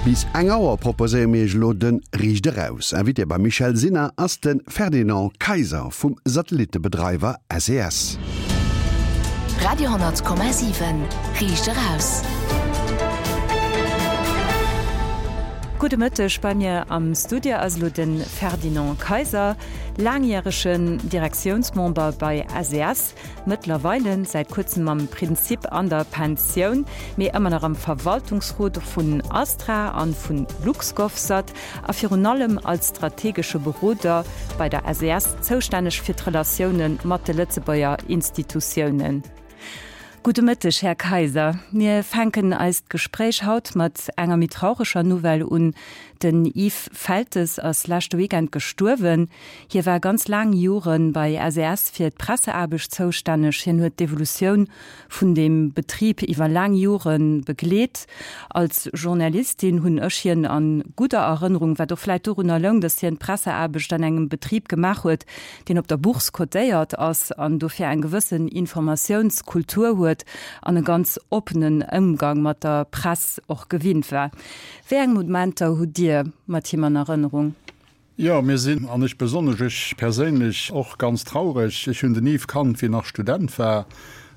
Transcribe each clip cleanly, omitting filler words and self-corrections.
Bis eng Auer proposéiere mir iech elo de Riicht Eraus. Invité beim Michèle Sinner ass de Ferdinand Kayser vum Satellittebedreiwer SES. Radio 10,7 Riicht Eraus. Gudde Mëtteg, bei mir am Studio ass elo de Ferdinand Kayser, laangjäregen Direktiounsmember bei SES. Mëttlerweile säit kuerzem am Prinzip an der Pensioun, mee ëmmer nach am Verwaltungsrot vun Astra an vun LuxGovSat a virun allem als strategesche Beroder bei der SES zoustänneg fir d'Relatioune mat de Lëtzebuerger Institutiounen. Gudde Mëtteg, Här Kayser. Mir fänken eist Gespréich haut mat enger méi traureger Nouvelle un, Den Yves Feltes ass leschte Weekend gestuerwen. Hie war ganz laang Jore bei SES fir d'Presseaarbecht zoustänneg. Hien huet d'Evolutioun vun deem Betrib iwwer laang Jore begleet. Als Journalistin hunn ech hien a gudder Erënnerung, wat och vläit dorunner loung, datt hien d'Presseaarbecht an engem Betrib gemaach huet, deen op der Bourse cotéiert ass an dofir eng gewëssen Informatiounskultur huet an e ganz oppenen Ëmgang mat der Press och gewinnt war. Wéi eng Momenter hutt Dir mat him an Erënnerung? Jo, mir sinn, an ech besonnesch, ech perséinlech och, ganz traureg. Ech hunn den Yves kannt, wéi en nach Student war,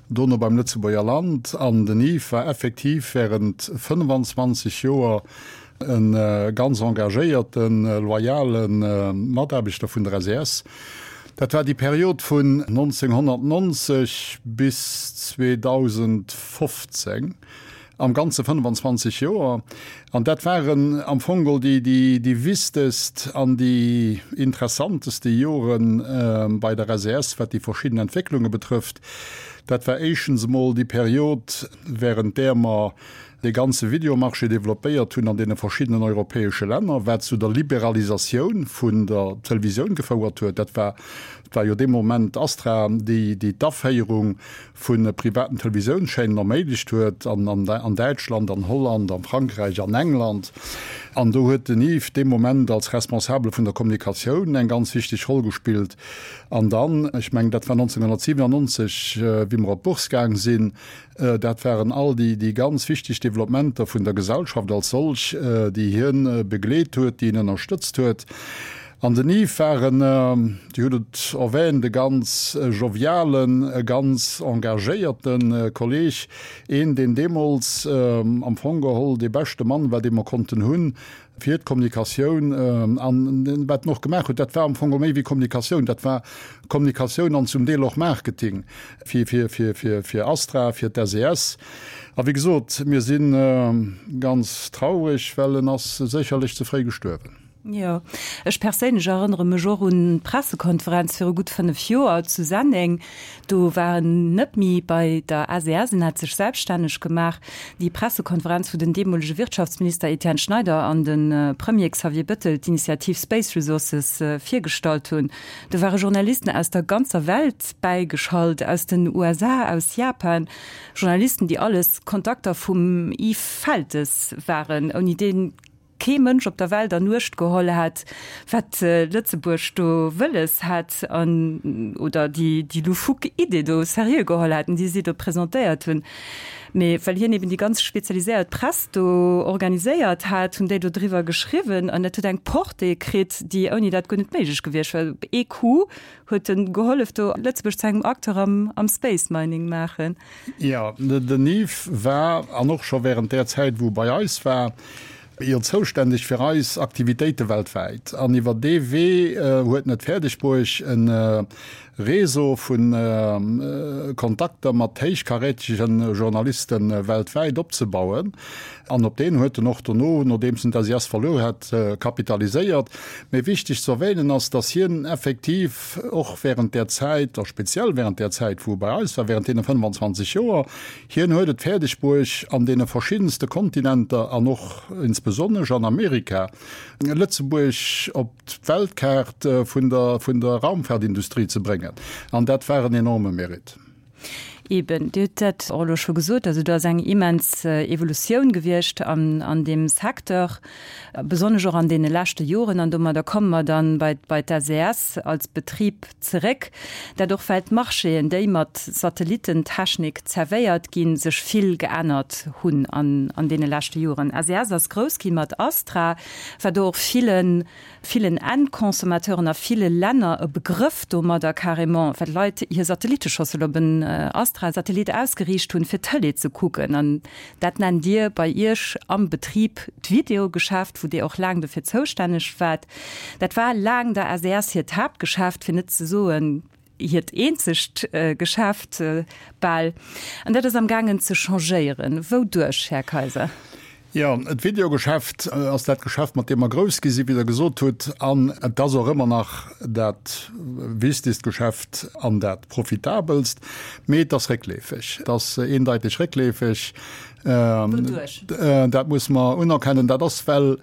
dono beim Lëtzebuerger Land. An den Yves war effektiv während 25 Joer e ganz engagéierten, loyale Mataarbechter vun der SES. Dat war déi Period vun 1990 bis 2015. Am Ganze 25 Joer. An dat waren am Fong geholl déi, déi, déi wichtegst an déi interessanteste Jore bei der SES, wat déi verschidden Entwécklunge betrëfft. Dat war éischtens emol déi Period, während där mer dee ganze Videomarché developpéiert hunn an deene verschiddenen europäesche Länner, wat zu der Liberalisatioun vun der Televisioun gefouert huet. Dat war, dat war jo dee Moment Astra, déi, déi d'Aféierung vu privaten Televisiounschaînen erméiglecht huet, an Däitschland, an Holland, a Frankräich, an England. An do huet den Yves dee Moment als Responsabele vun der Kommunikatioun eng ganz wichteg Roll gespillt. An dann, ech mengen, dat war 1997, wéi mer op d'Bourse gaang sinn, dat waren all déi ganz wichteg Developpementer vun der Gesellschaft als solch, déi hien begleet huet, déi en ënnerstëtzt huet. An den Yves war en, Dir hutt et erwähnt, e ganz jovialen, e ganz engagéierte Kolleg, een, deen deemools am Fong geholl dee beschte Mann war, dee mer konnten hunn fir d'Kommunikatioun. An wat en och gemaach huet, dat war am Fong geholl méi wéi Kommunikatioun, dat war Kommunikatioun an zum Deel och Marketing fir Astra, fir d'SES. A wéi gesot, mir si ganz traureg, well en ass sécherlech ze fréi gestuerwen. Jo, ech perséinlech erënnere mech och un d'Pressekonferenz viru gutt 5 Joer zu Senneng. Do war en net méi bei der SES, en hat sech selbststänneg gemaach. Déi Pressekonferenz, wou den deemolege Wirtschaftsminister Etienne Schneider an de Premier Xavier Bettel d'Initiativ Space Resources virgestallt hunn. Do ware Journalisten aus der ganzer Welt bäigeschalt, aus den USA, aus Japan, Journalisten, déi alles Kontakter vum Yves Feltes waren, ouni dee kee Mënsch op der Welt an Uecht geholl hätt, wat Lëtzebuerg do wëlles hätt an, oder déi, déi loufoque Idee do seriö geholl hätten, déi si do presentéiert hunn. Mee well hien eben déi ganz spezialiséiert Press do organiséiert hat, hunn déi do driwwer geschriwwen an dat huet eng Portée kritt, déi ouni dat guer net méiglech gewiescht wär. Op ee Coup huet en gehollef do Lëtzebuerg zu engem Acteur am, am Space Mining maachen. Jo, den Yves war, an och scho während där Zäit wou e bei eis war, jo zoustänneg fir eis Aktivitéite weltwäit. An iwwer dee Wee huet en et fäerdeg bruecht e Réseau vu Kontakter mat héichkarätege Journaliste weltwäit opzebauen. An op deen huet en och dono, nodeems en d'SIS verluer hat, kapitaliséiert. Mee wichteg ze erwähnen ass, dass hien effektiv och während där Zäit, a speziell während där Zäit, wou e bei eis war, während deene 25 Joer, hien huet et fäerdeg bruecht, an deene verschiddenste Kontinenter an och insbesonnesch an Amerika, Lëtzebuerg op d'Weltkaart vun der, vun der Raumfahrtindustrie ze bréngen. An dat war en enorme Mérite. Eben, Dir hutt dat och elo scho gesot, also do ass eng immens Evolutioun gewiescht an deem Secteur, besonnesch och an deene leschte Joren. An domadder komme mer dann bei bei d'SES als Betrib zeréck, dat och well d'Marchéen, déi mat Satellitentechnik zerwéiert ginn, sech vill geännert hunn an deene leschte Joren. SES ass grouss gi mat Astra, war do och villen villen Endconsommateuren a ville Länner e Begrëff domadder carrément, well d'Leit hir Satelliteschossel op en Astra-Satellit ausgeriicht hunn, fir Tëlee ze kucken. An dat nennt Dir bei Iech am Betrib d'Videogeschäft, wou Dir och laang dofir zoustänneg waart. Dat war laang der SES hiert Haaptgeschäft, fir net ze soen, hiert eenzegt Geschäft bal. An dat ass am gaangen ze changéieren. Wouduerch, Här Kaiser? Jo, d'Videogeschäft ass dat Geschäft, mat deem mer grouss gi sinn, wéi Der gesot hutt. An et ass och ëmmer nach dat wichtegst Geschäft an dat profitabelst. Mee et ass réckleefeg. Et ass eendeiteg réckleefeg. Wouduerch? Dat muss mer unerkennen. Dat ass, well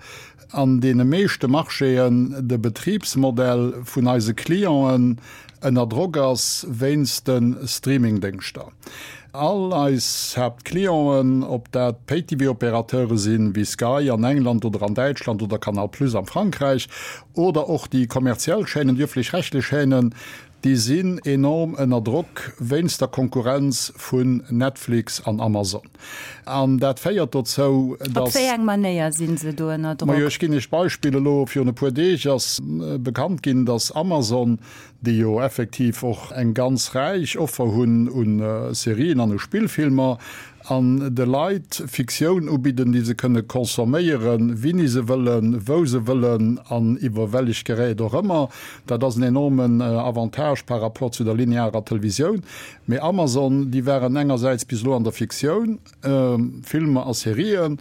an deene meeschte Marchéen de Betribsmodell vun eise Clienten ënner Drock ass wéinst de Streamingdéngschter. All eis Haaptclienten, ob dat Pay-TV-Opérateure sinn, wéi Sky an England oder an Däitschland oder Canal Plus am Frankräich, oder och déi kommerziell Chaînen, déi ëfflech-rechtlech Chaînen, déi sinn enorm ënner Drock wéinst der Konkurrenz vun Netflix an Amazon. An dat féiert dozou, Op datt. wéi eng Manéier si se do ënner Drock? Majo, ech ginn Iech d'Beispill, Elo virun e puer Deeg ass bekannt ginn, datt Amazon déi jo effektiv och eng ganz räich Offer hunn u Serien an u Spillfilmer, an de Leit Fiktioun ubidden, déi se kënne consomméieren, wini se wëllen, wou se wëllen an iwwer wellech Gerät och ëmmer. Dat ass en enormen Avantage par rapport zu der linearer Televisioun. Mee Amazon, déi waren engersäits bis elo an der Fiktioun, Filmer a Serien,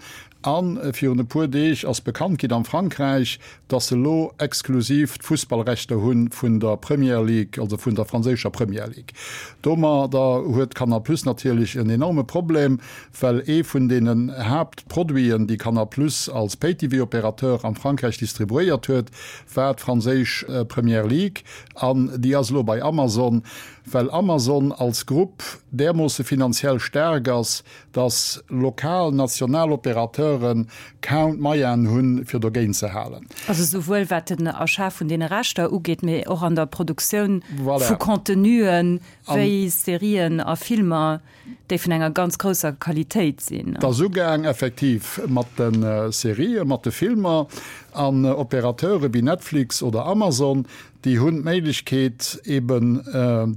A virun e puer Deeg ass bekannt ginn am Frankräich, datt se elo exklusiv d'Fussballrechter hu vun der Premier League, also vun der franséischer Premier League. Domadder huet Canal Plus natierlech en enorme Problem, well ee vun deenen Haaptproduiten, déi Canal Plus als Pay-TV-Opérateur am Frankräich distribuéiert huet, war d'franséisch Premier League. An déi ass elo bei Amazon, well Amazon als Grupp därmoosse finanziell staark ass, dass lokal, national Opérateure kaum d'Moyenen hunn, fir dogéint ze halen. Also souwuel wat den Achat vun deene Rechter ugeet, mee och an der Produktioun vu Contenuen, wéi Serien a Filmer, déi vun enger ganz grousser Qualitéit sinn. Et ass ugaang effektiv mat de Serien, mat de Filmer. An Opérateure wéi Netflix oder Amazon, Déi hunn d'Méiglechkeet, eben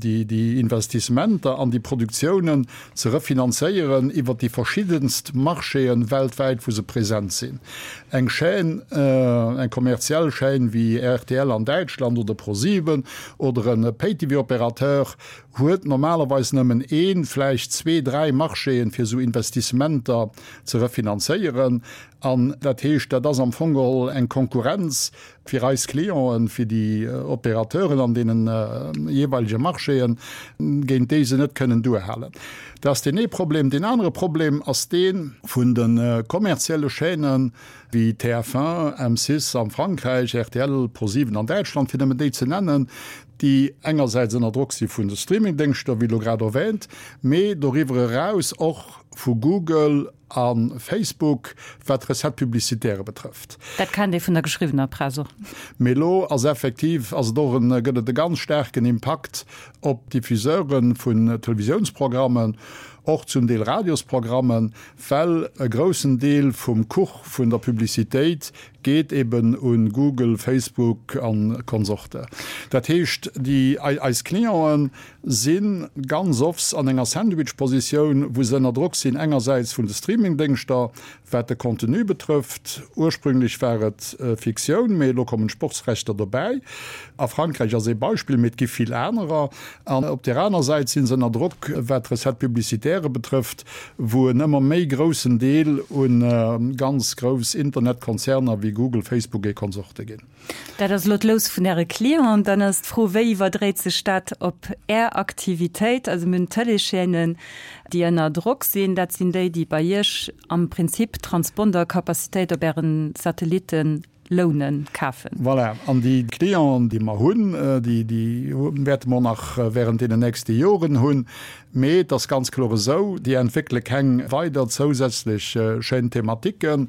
déi Investissementer an déi Produktiounen ze refinanzéieren iwwert déi verschiddenst Marchéen weltwäit, wou se present sinn. Eng Chaîne, eng kommerziell Chaîne wéi rtl an Däitschland oder ProSieben oder e Pay-TV-Opérateur huet normalerweis nëmmen een, vläicht zwee, dräi Marchéen, fir esou Investissementer ze refinanzéieren. An dat heescht, dat ass am Fong geholl eng Konkurrenz fir eis Clienten, fir déi Opérateuren an deene jeeweilege Marchéen, géint déi se net kënnen duerhalen. Dat ass deen ee Problem. Deen anere Problem ass dee vun de kommerzielle Chaînen, wéi TF1, M6 am Frankräich, rtl, ProSieben an Däitschland, fir nëmmen déi ze nennen, déi engersäits ënner Drock si vun de Streamingdéngschter, wéi elo grad erwähnt, mee doriwwer eraus och vu Google, A Facebook, wat d'Recettes publicitaires betrëfft. Dat kennt ee vun der geschriwwener Press och. Mee elo ass effektiv, ass et och en, gëtt et e ganz staarken Impakt op d'Diffuseure vun Televisiounsprogrammen, och zum Deel Radiosprogrammen, well e groussen Deel vum Kuch vun der Publicitéit geet eben u Google, Facebook a Konsorte. Dat heescht, déi, eis Clienten si ganz offs an enger Sandwich-Positioun, wou se ënner Drock sinn, engersäits vun de Streaming-Déngschter, wat de Contenu betrëfft, ursprünglech war et Fiktioun, mee elo kommen d'Sportsrechter dobäi, a Frankräich ass ee Beispill, mee et gi vill anerer, an op där aner Säit si se ënner Drock, wat d'Recettes publicitaires betrëfft, wou en ëmmer méi groussen Deel u ganz grouss Internetkonzerner wéi Google, Facebook et Konsorte ginn. Dat ass elo d'Lous vun Äre Clienten. Dann ass d'Fro, Wéi iwwerdréit sech dat op Är Aktivitéit? Also mir hunn Tëleeschaînen, déi ënner Drock sinn. Dat sinn déi, déi bei Iech am Prinzip Transpondercapacitéit op Äre Satellitte. lounen, kafen. Voilà, an déi Clienten, déi mer hunn, déi, déi wäerte mer och nach während deenen nächste Joren hunn. Mee et ass ganz kloer esou, déi entwéckele keng weider zousätzlech Chaînes thématiques.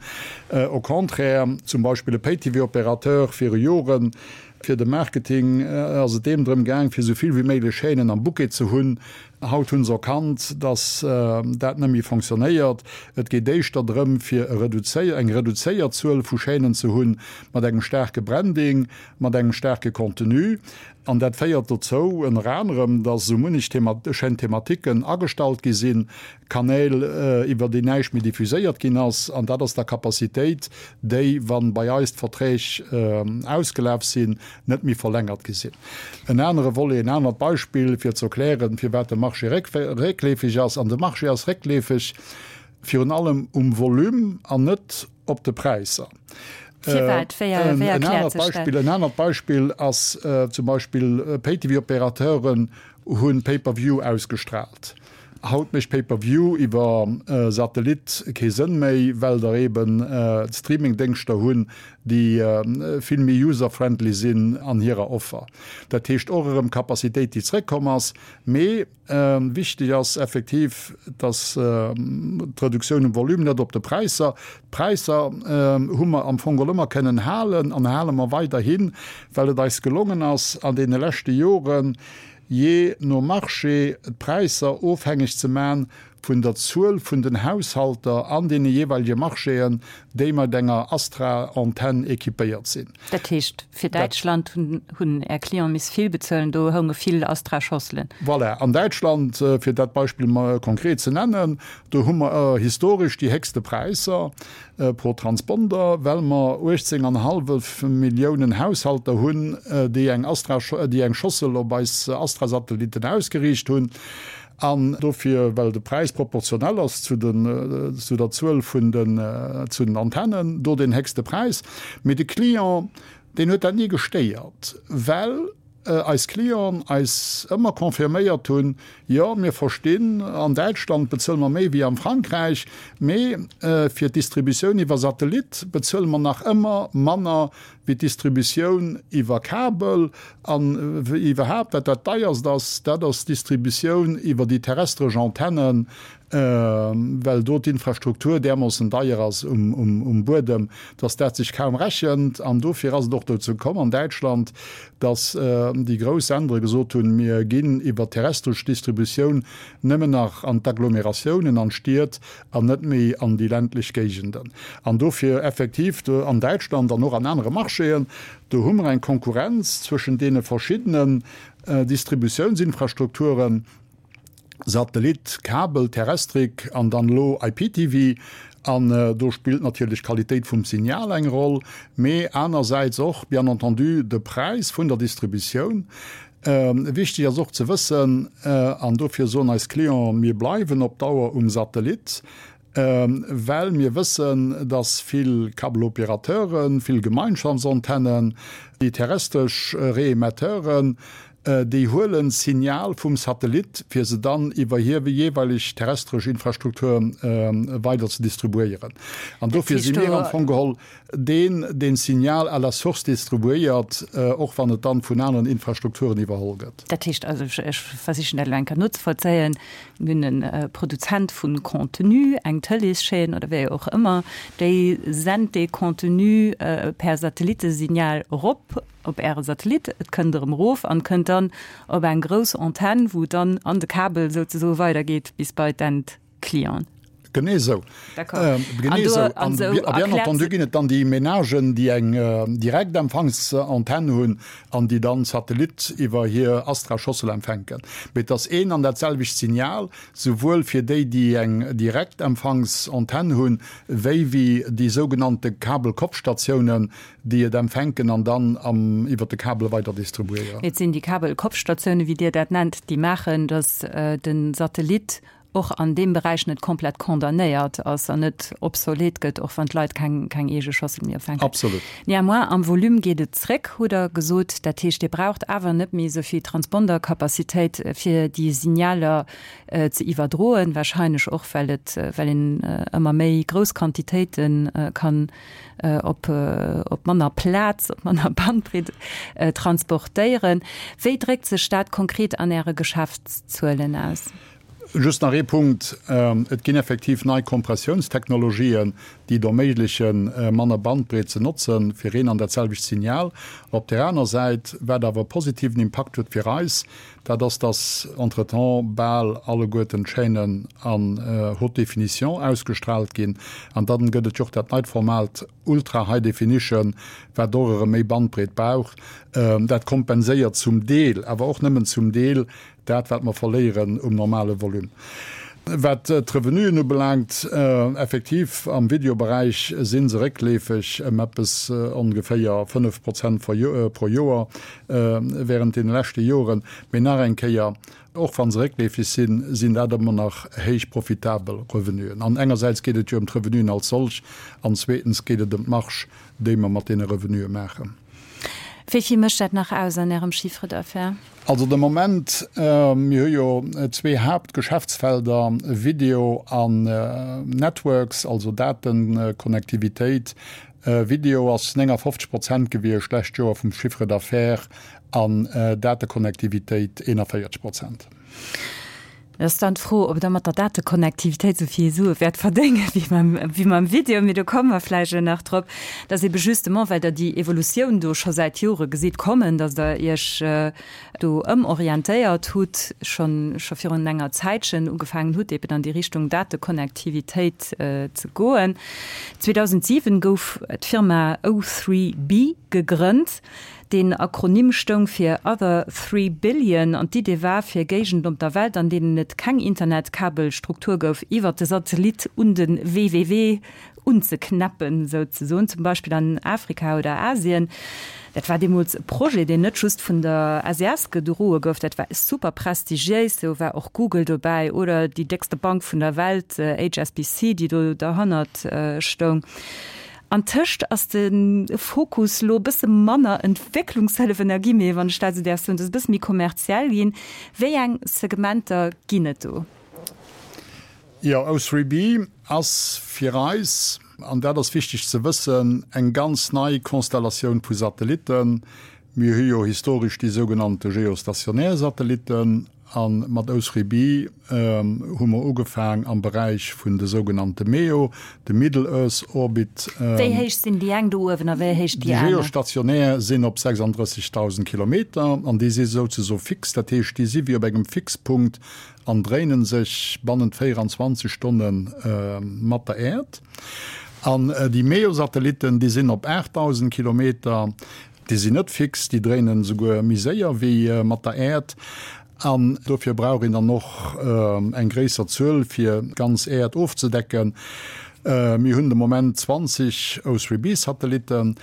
Au contraire, zum Beispill e Pay-TV-Opérateur viru Joren, fir de Marketing ass et deem drëm gaang, fir esou vill wéi méiglech Chaînen am Bouquet ze hunn. Haut hu se erkannt, dass dat net méi fonctionnéiert. Et geet éischter drëm, fir e eng reduzéiert Zuel vu Chaînen ze hunn, mat engem staarke Branding, mat engem staarke Contenu. An dat féiert dozou, ënner anerem, dass esou munnech Chaînes thématiquen agestallt gi sinn, Kanäl, iwwer déi näischt méi diffuséiert ginn ass. An dat ass da Capacitéit, déi, wa bei eis d'Verträg ausgelaf sinn, net méi verlängert gi sinn. En anere Volet, en anert Beispill, fir ze erklären, firwat de Marché réckleefeg ass, an de Marché ass réckleefeg virun allem um Volume an net op de Präisser. Firwat? Wéi erkläert sech dat? En anert Beispill ass zum Beispill, Pay-TV-Opérateuren hu Pay-per-view ausgestraalt. Haut mécht Pay-per-view iwwer Satellit kee Sënn méi, well der eben d'Streaming-Déngschter hunn, déi vill méi user-friendly sinn an hirer Offer. Dat heescht och erëm Capacitéit, déi zréckkomm ass. Mee Wichteg ass effektiv, dass d'Reduktioun um Volume, net op de Präisser, d'Präisser hu mer am Fong geholl ëmmer kënnen halen an hale mer weiderhin, well et eis gelongen ass an deene leschte Joren, jee no Marché d'Präisser ofhängeg ze man vun der Zuel vun den Haushalter an deene jeeweilege Marchéen, déi mat enger Astra-Antenn équipéiert sinn. Dat heescht, fir Däitschland hunn Är Clienten miss vill bezuelen, do hounge vill Astra-Schosselen. Voilà, an Däitschland, fir dat Beispill mol konkret ze nennen, do hu mer historesch déi héchste Präisser pro Transponder, well mer 18 an hallef Milliounen Haushalter hunn, déi eng Astra, déi eng Schossel op eis Astra-Satellitten ausgeriicht hunn. An dofir, well de Präis proportionell ass zu den, zu der Zuel vun den, zu den Antennen, do deen héchste Präis. Mee de Client, deen huet dat ni gestéiert, well eis Clienten eis ëmmer confirméiert hunn, Jo, mir verstinn, an Däitschland bezuele mer méi wéi am Frankräich, mee fir d'Distributioun iwwer Satellit bezuele mer nach ëmmer manner wéi d'Distributioun iwwer Kabel an iwwerhaapt, wat dat deierst ass, dat ass d'Distributioun iwwer déi terrestresch Antennen, well do d'Infrastruktur därmoossen deier ass um Buedem, dass dat sech kaum rechent. An dofir ass et och dozou komm an Däitschland, dass déi grouss Sendere gesot hunn, mir ginn iwwer d'terrestresch Distributioun nëmmen nach an d'Agglomeratiounen, an d'Stied, an net méi an déi ländlech Géigenden. An dofir effektiv do an Däitschland an och an anere Marchéen, do hu mer eng Konkurrenz zwëschen deene verschiddenen Distributiounsinfrastrukturen, Satellit, Kabel, Terrestrik an dann elo IPTV. An do spillt natierlech d'Qualitéit vum Signal eng Roll, mee anersäits och bien entendu de Präis vun der Distributioun. Wichteg ass och ze wëssen, an dofir soen eis Clienten, mir bleiwen op Dauer um Satellit, well mir wëssen, dass vill Kabelopérateuren, vill Gemeinschaftsantennen, déi terrestresch Reemetteuren, déi huelen d'Signal vum Satellit, fir se dann iwwer hir jeeweileg terrestresch Infrastruktur weider ze distribuéieren. An dofir si mir am Fong geholl deen deen d'Signal à la source distribuéiert, och wann et dann vun aneren Infrastrukturen iwwerholl gëtt. Dat heescht also, ech versichen dat elo eng Kéier nozevollzéien, mir hunn e Produzent vu Contenu, eng Tëleeschaîne oder wéi och ëmmer, déi sent dee Contenu per Satellitesignal erop op Äre Satellit, et kënnt erëm erof an kënnt dann op eng grouss Antenn, wou et dann an de Kabel souzesoe weidergeet bis bei d'End. Client. Genee esou. Genee esou. An bien entendu ginn et dann déi Ménagen, déi eng Direktempfangsantenn hunn an déi dann Satellit iwwer hir Astra-Schossel empfänken. Mee et ass een an dat selwecht Signal, souwuel fir déi, déi eng Direktempfangsantenn hunn, wéi wéi déi sougenannte Kabelkopfstatiounen, déi et empfänken an dann iwwer de Kabel weider distribuéieren. Et sinn déi Kabelkopfstatiounen, wéi Dir dat nennt, déi maachen, datt de Satellit. och an deem Beräich net komplett condamnéiert ass an net obsolet gëtt, och wann d'Leit keng, keng eege Schossel méi opfänken. Absolut. Néanmoins, am Volume geet et zréck, hutt Der gesot. Dat heescht, Dir braucht awer net méi esou vill Transpondercapacitéit, fir déi Signaler ze iwwerdroen, wahrscheinlech och, well et, well een ëmmer méi grouss Quantitéite kann op, op manner Plaz, op manner Bandbreet transportéieren. Wéi dréckt sech dat konkret an Äre Geschäftszuelen aus? Just nach ee Punkt, Et ginn effektiv nei Kompressiounstechnologien, déi et erméiglechen, manner Bandbreet ze notzen, fir een an dat selwecht Signal. Op där aner Säit, wat awer e positiven Impakt huet fir eis, dat ass, dass entretemps bal alleguerten d'Chaînen an Haute Définition ausgestrahlt ginn. An dann gëtt et jo och dat neit Format Ultra High Definition, wat och erëm méi Bandbreet brauch. Dat kompenséiert zum Deel, awer och nëmmen zum Deel, Dat, wat mer verléieren um normale Volume. Wat d'Revenuen ubelaangt, effektiv, am Videoberäich si se réckleefeg ëm eppes ongeféier 5 Prozent pro Joer während deene leschte Joren. Mee nach eng Kéier, och wa se réckleefeg sinn, sinn dat ëmmer nach héich profitabel Revenuen. An engersäits geet et jo ëm d'Revenuen als solch an zweetens geet et ëm d'Marge, déi mer mat deene Revenue maachen. Wéi vill mécht dat nach aus an Ärem Chiffre d'affaires? Also de Moment, mir hu jo zwee Haaptgeschäftsfelder, Video an Networks, also Datenkonnektivitéit. Video ass 59 Prozent gewiescht d'lescht Joer vum Chiffre d'affaires an Datekonnektivitéit 41 Prozent. Et ass dann d'Fro, ob Der mat der Datekonnektivitéit esou vill Sue wäert verdéngen, wéi mam, wéi mam Video. Mee do komme mer vläicht elo nach drop. Dat ass ebe justement, well Der déi Evolutioun do scho säit Jore gesitt kommen, datt Der Iech do ëmorientéiert hutt, schonn, scho virun enger Zäitchen ugefaangen hutt, eben an déi Richtung Datekonnektivitéit ze goen. 2007 gouf d'Firma O3b gegrënnt. Deen Akronym stoung fir Other Three Billion an d'Idee war, fir Géigenden op der Welt, an deenen et keng Internetkabelstruktur gouf, iwwert de Satellit un de WWW unzeknäppen, souzesoen, zum Beispill an Afrika oder Asien. Dat war deemools e Projet, deen net just vun der SES gedroe gouf, dat war super prestigiéis, do war och Google dobäi oder déi déckste Bank vun der Welt, HSBC, déi do derhannert stoung. An tëscht ass de Fokus lo e bësse manner Entwécklungshëllef, Energiemee, wann ech dat esou däerf soen, et ass e bësse méi kommerziell ginn. Wéi eng Segmenter ginn et do? Jo, O3b ass fir eis, an dat ass wichteg ze wëssen, eng ganz nei Konstellatioun vu Satellitten. Mir hu jo historesch déi sougenannte geostationär Satellitten. A mat O3b hu mer ugefaang am Beräich vun de sougenannte MEO, de Middle Earth Orbit. Wéi héich sinn déi eng do uewen a wéi héich déi aner? Déi geostationär sinn op 36.000 Kilometer an déi si souzesoe fix. Dat heescht, déi si wéi op engem Fixpunkt an dréinen sech bannent 24 Stonne mat der Äerd. An déi MEO-Satellitten, déi sinn op 8.000 Kilometer. Déi sinn net fix, déi dréinen esouguer méi séier wéi mat der Äerd. An dofir brauch een dann och eng gréisser Zuel, fir d'ganz Äerd ofzedecken. Mir hunn de Moment 20 O3b-Satellitten.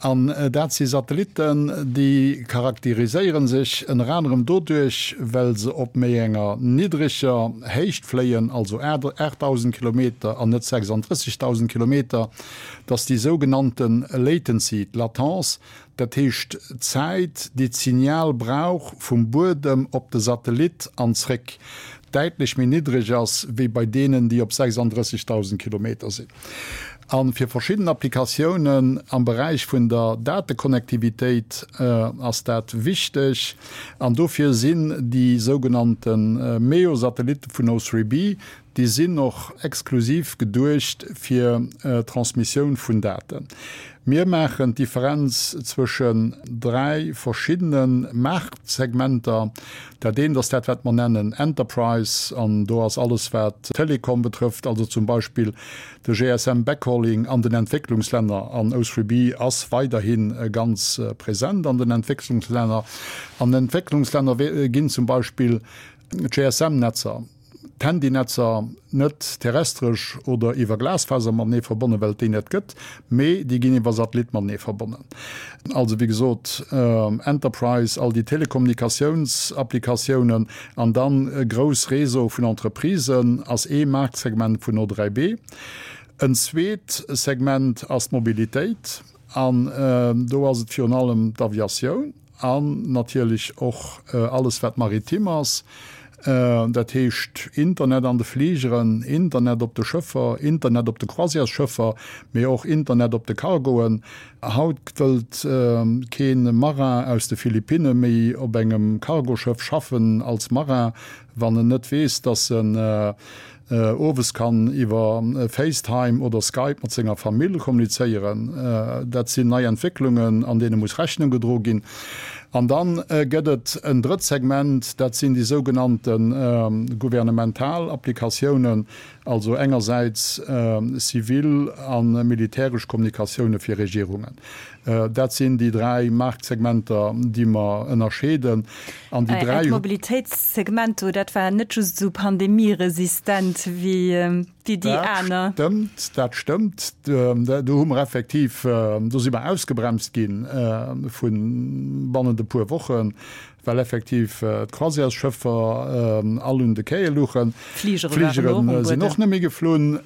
An dat si Satellitten, déi charakteriséiere sech ënner anerem doduerch, well se op méi enger niddreger Héicht fléien, also 8.000 Kilometer an net 36.000 Kilometer. dass déi sougenannte Latency, d'Latence, dat heescht d'Zäit, déi d'Signal brauch vum Buedem op de Satellit an zréck, däitlech méi niddreg ass wéi bei deenen, déi op 36.000 Kilometer sinn. A fir verschidden Applikatiounen am Beräich vun der Datekonnektivitéit ass dat wichteg. An dofir sinn déi sougenannte MEO-Satellitte vun O3b, Déi sinn och exklusiv geduecht fir d'Transmissioun vun Daten. Mir maachen d'Differenz zwëschen 3 verschiddene Maartsegmenter. Dat eent ass dat, wat mer nennen Enterprise, an do ass alles, wat Telekom betrëfft, also zum Beispill de GSM Backhauling an den Entwécklungslänner, an O3b ass weiderhi ganz present an den Entwécklungslänner. An den Entwécklungslänner ginn zum Beispill d'GSM-Netzer. d'Handynetzer net terrestresch oder iwwer Glasfaser matenee verbonnen, well et déi net gëtt, mee déi ginn iwwer Satellit matenee verbonnen. Also wéi gesot Enterprise, all déi Telekommunikatiounsapplikatiounen an dann grouss Réseau vun Entreprisen ass ee Maartsegment vun O3B. En zweet Segment ass d'Mobilitéit an do ass et virun allem d'Aviatioun. An natierlech och alles wat maritim ass, dat heescht Internet an de Fligeren, Internet op de Schëffer, Internet op de Croisièresschëffer, mee och Internet op de Cargoen. Haut wëllt kee Marin aus de Philippinne méi op engem Cargoschëff schaffen als Marin, wann en net weess, dass en owes kann iwwer FaceTime oder Skype mat senger Famill kommunizéieren. Dat sinn nei Entwécklungen, an deene muss Rechnung gedro ginn. An da gëtt et en drëtt Segment, dat sinn déi sougenannte gouvernemental Applikatiounen, also engersäits zivil a militäresch Kommunikatioune fir Regierungen. Dat sinn déi dräi Maartsegmenter, déi mer ënnerscheeden. An déi dräi. Äert Mobilitéitssegment do, dat war net just esou pandemieresistent wéi déi aner. Dat stëmmt, dat stëmmt. Do hu mer effektiv, do si mer ausgebremst gi vu bannent e puer Wochen. Well effektiv d'Croisièresschëffer all un de Quaie luchen. D'Fligere sinn och net méi geflunn.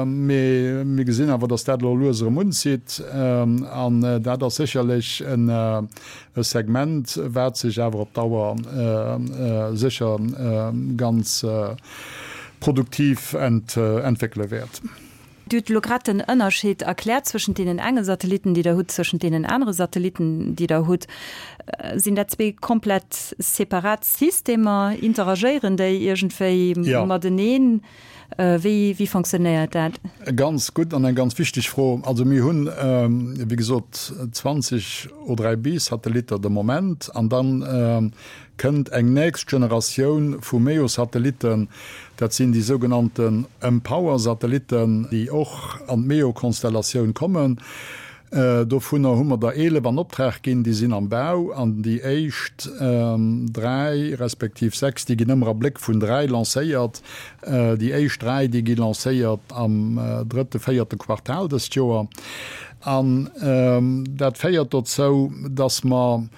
Mee mir gesinn awer, datt dat elo lues erëm unzitt. An dat ass sécherlech e Segment, wat sech awer op Dauer sécher ganz produktiv entwéckele wäert. Dir hutt elo grad den Ënnerscheed erkläert zwëschent deenen enge Satellitten, déi Der hutt, zwëschent deenen anere Satellitten, déi Der hutt. Sinn dat zwee komplett separat Systemer? Interagéieren déi iergendwéi mateneen? Wéi, wéi fonctionnéiert dat? Ganz gutt an eng ganz wichteg Fro. Also mir hunn, wéi gesot, 20 O3b-Satellitter de Moment an dann kënnt eng nächst Generatioun vu MEO-Satellitten, dat sinn déi sougenannten mPOWER-Satellitten, déi och an d'MEO-Konstellatioun kommen. Dovunner hu mer der 11 an Optrag ginn, déi sinn am Bau an déi éischt dräi respektiv sechs, déi ginn ëmmer a Bléck vun dräi lancéiert. Déi éischt dräi, déi gi lancéiert am drëtte, véierte Quartal dëst Joer. An dat féiert dozou, dass mer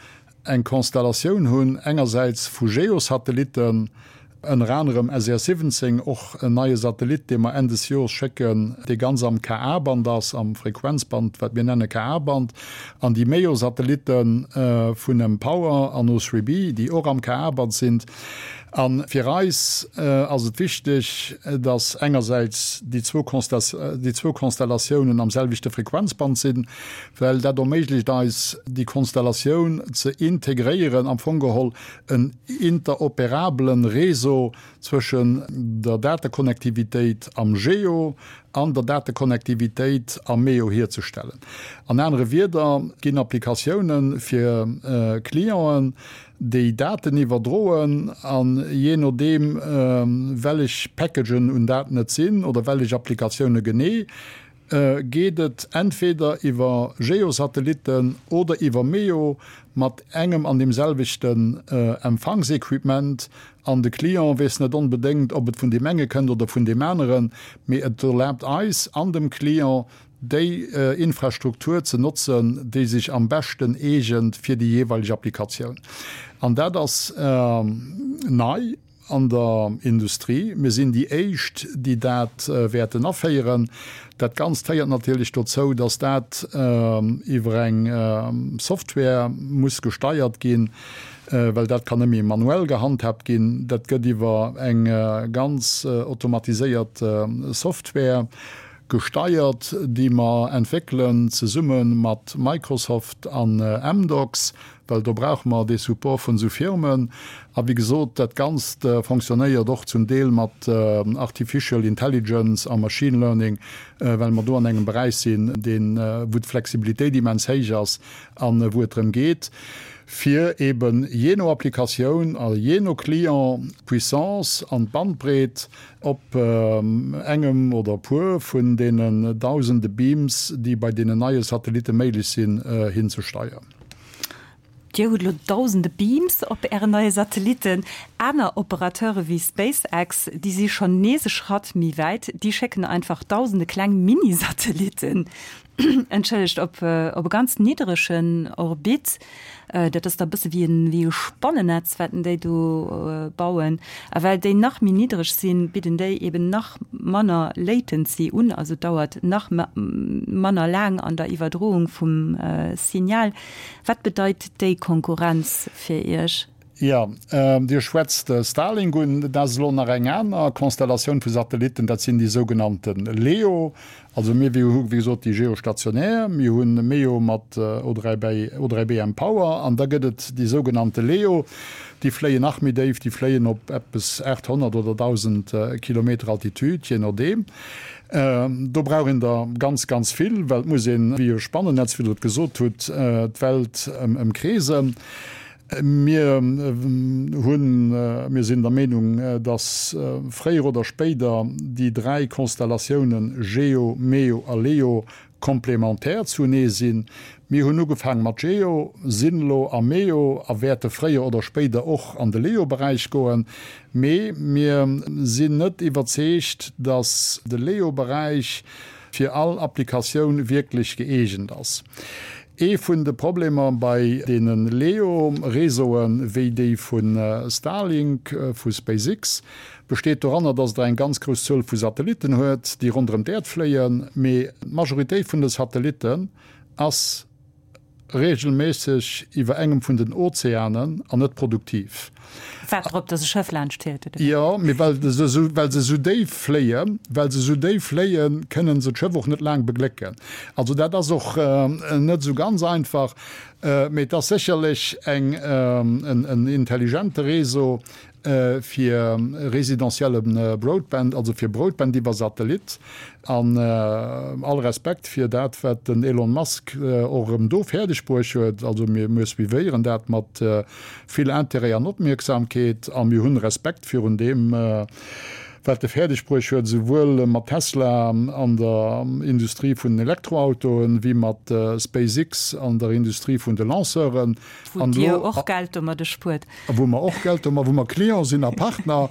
eng Konstellatioun hunn, engersäits vu Geosatellitten, ënner anerem SES 17, och en neie Satellit, dee mer Enn des Jores schécken, dee ganz am Ka-Band ass, am Frequenzband, wat mir nenne Ka-Band, an déi MEO-Satellitte vun mPOWER an O3b, déi och am Ka-Band sinn. A fir eis ass et wichteg, datt engersäits déi zwou Konstellatiounen am selwechte Frequenzband sinn, well dat erméiglecht eis, déi Konstellatioun ze integréieren, am Fong geholl en interoperabelen Réseau zwëschen der Datekonnektivitéit am GEO an der Datekonnektivitéit am MEO hierzestellen. An anere Wieder, et ginn Applikatiounen fir Clienten, déi Daten iwwerdroen, an jee nodeem wellech Packagen un Daten et sinn oder wellech Applikatioune genee, geet et entweder iwwer Geosatellitten oder iwwer MEO mat engem an deem selwechten Empfangsequipement, an de Client weess net onbedéngt, ob et vun deem enge kënnt oder vun deem aneren, mee et erlaabt eis an dem Client, déi Infrastruktur ze notzen, déi sech am beschten eegent fir déi jeeweileg Applikatioun. An dat ass nei an der Industrie. Mir sinn déi éischt, déi dat wäerten aféieren. Dat Ganzt féiert natierlech dozou, dass dat iwwer eng Software muss gesteiert ginn, well dat kann net méi manuell gehandhaabt ginn. Dat gëtt iwwer eng ganz automatiséiert Software gesteiert, déi mer entwéckelen zesumme mat Microsoft an Amdocs, well do brauche mer dee Support vun esou Firmen. A wéi gesot, dat Ganzt fonctionnéiert och zum Deel mat Artificial Intelligence a Machine Learning, well mer do an engem Beräich sinn, deen, wou d'Flexibilitéit immens héich ass a wou et drëm geet, fir eeben jee no Applikatioun a jee no Client d'Puissance an d'Bandbreet op engem oder e puer vun deenen dausende Beams, déi bei deenen neie Satellitte méiglech sinn, hinzesteieren. Dir hutt elo dausende Beams op Ären neie Satellitten. Aner Operateure wéi SpaceX, déi si schonn nees e Schratt méi wäit, déi schécken einfach dausende kleng Mini-Satellitten, entschëllegt, op op e ganz niddregen Orbit. Dat ass da e bësse wéi en wéi e Spannennetz, wat déi do bauen. A well déi nach méi niddreg sinn, bidden déi eben nach manner Latency un, also et dauert nach manner laang an der Iwwerdroung vum Signal. Wat bedeit déi Konkurrenz fir Iech? Jo, Dir schwätzt Starlink un. Dat ass elo nach eng aner Konstellatioun vu Satellitten, dat sinn déi sougenannte LEO. Also mir hu wéi gesot déi geostationär, mir hu MEO mat O3B mPOWER an da gëtt et déi sougenannte LEO, déi fléien nach méi déif, déi fléien op eppes 800 oder 1.000 Kilometer Altitude, jee nodeem. Do brauch een der ganz, ganz vill, well et muss een, wéi e Spannennetz, wéi Der et gesot hutt, d'Welt ëmkreesen. Mir hunn, mir sinn der Meenung, dass fréier oder spéider déi dräi Konstellatiounen Geo, Meo a Leo komplementär zunee sinn. Mir hunn ugefaang mat Geo, sinn elo a Meo a wäerte fréier oder spéider och an de Leo-Beräich goen. Mee mir sinn net iwwerzeegt, dass de Leo-Beräich fir all Applikatioun wierklech gëeegent ass. Ee vun de Problemer bei deene LEO-Réseauen, wéi déi vu Starlink, vu SpaceX, besteet doranner, dass der eng ganz grouss Zuel vu Satellitten huet, déi ronderëm d'Äerd fléien, mee d'Majoritéit vun de Satellitten ass reegelméisseg iwwer engem vun den Ozeanen an net produktiv. Waart drop, dass e Schëff laanscht fiert, oder wéi? Jo, mee well se esou, well se esou déif fléien, well se esou déif fléien, kënnen se d'Schëff och net laang beglécken. Also dat ass och net esou ganz einfach, mee et ass sécherlech eng, en intelligente Réseau, fir residentielle Broadband, also fir Broadband iwwer Satellit. An all Respekt fir dat, wat den Elon Musk och erëm do fäerdeg bruecht huet. Also mir, mir suivéieren dat mat vill Intérêt an Opmierksamkeet a mir hunn Respekt virun deem, wat e fäerdeg bruecht huet, esouwuel mat Tesla an der Industrie vun den Elektroautoen, wéi mat SpaceX an der Industrie vun de Lanceuren. Wou Dir och Geld domadde spuert. Wou mer och Geld domat, wou mer Client sinn a Partner,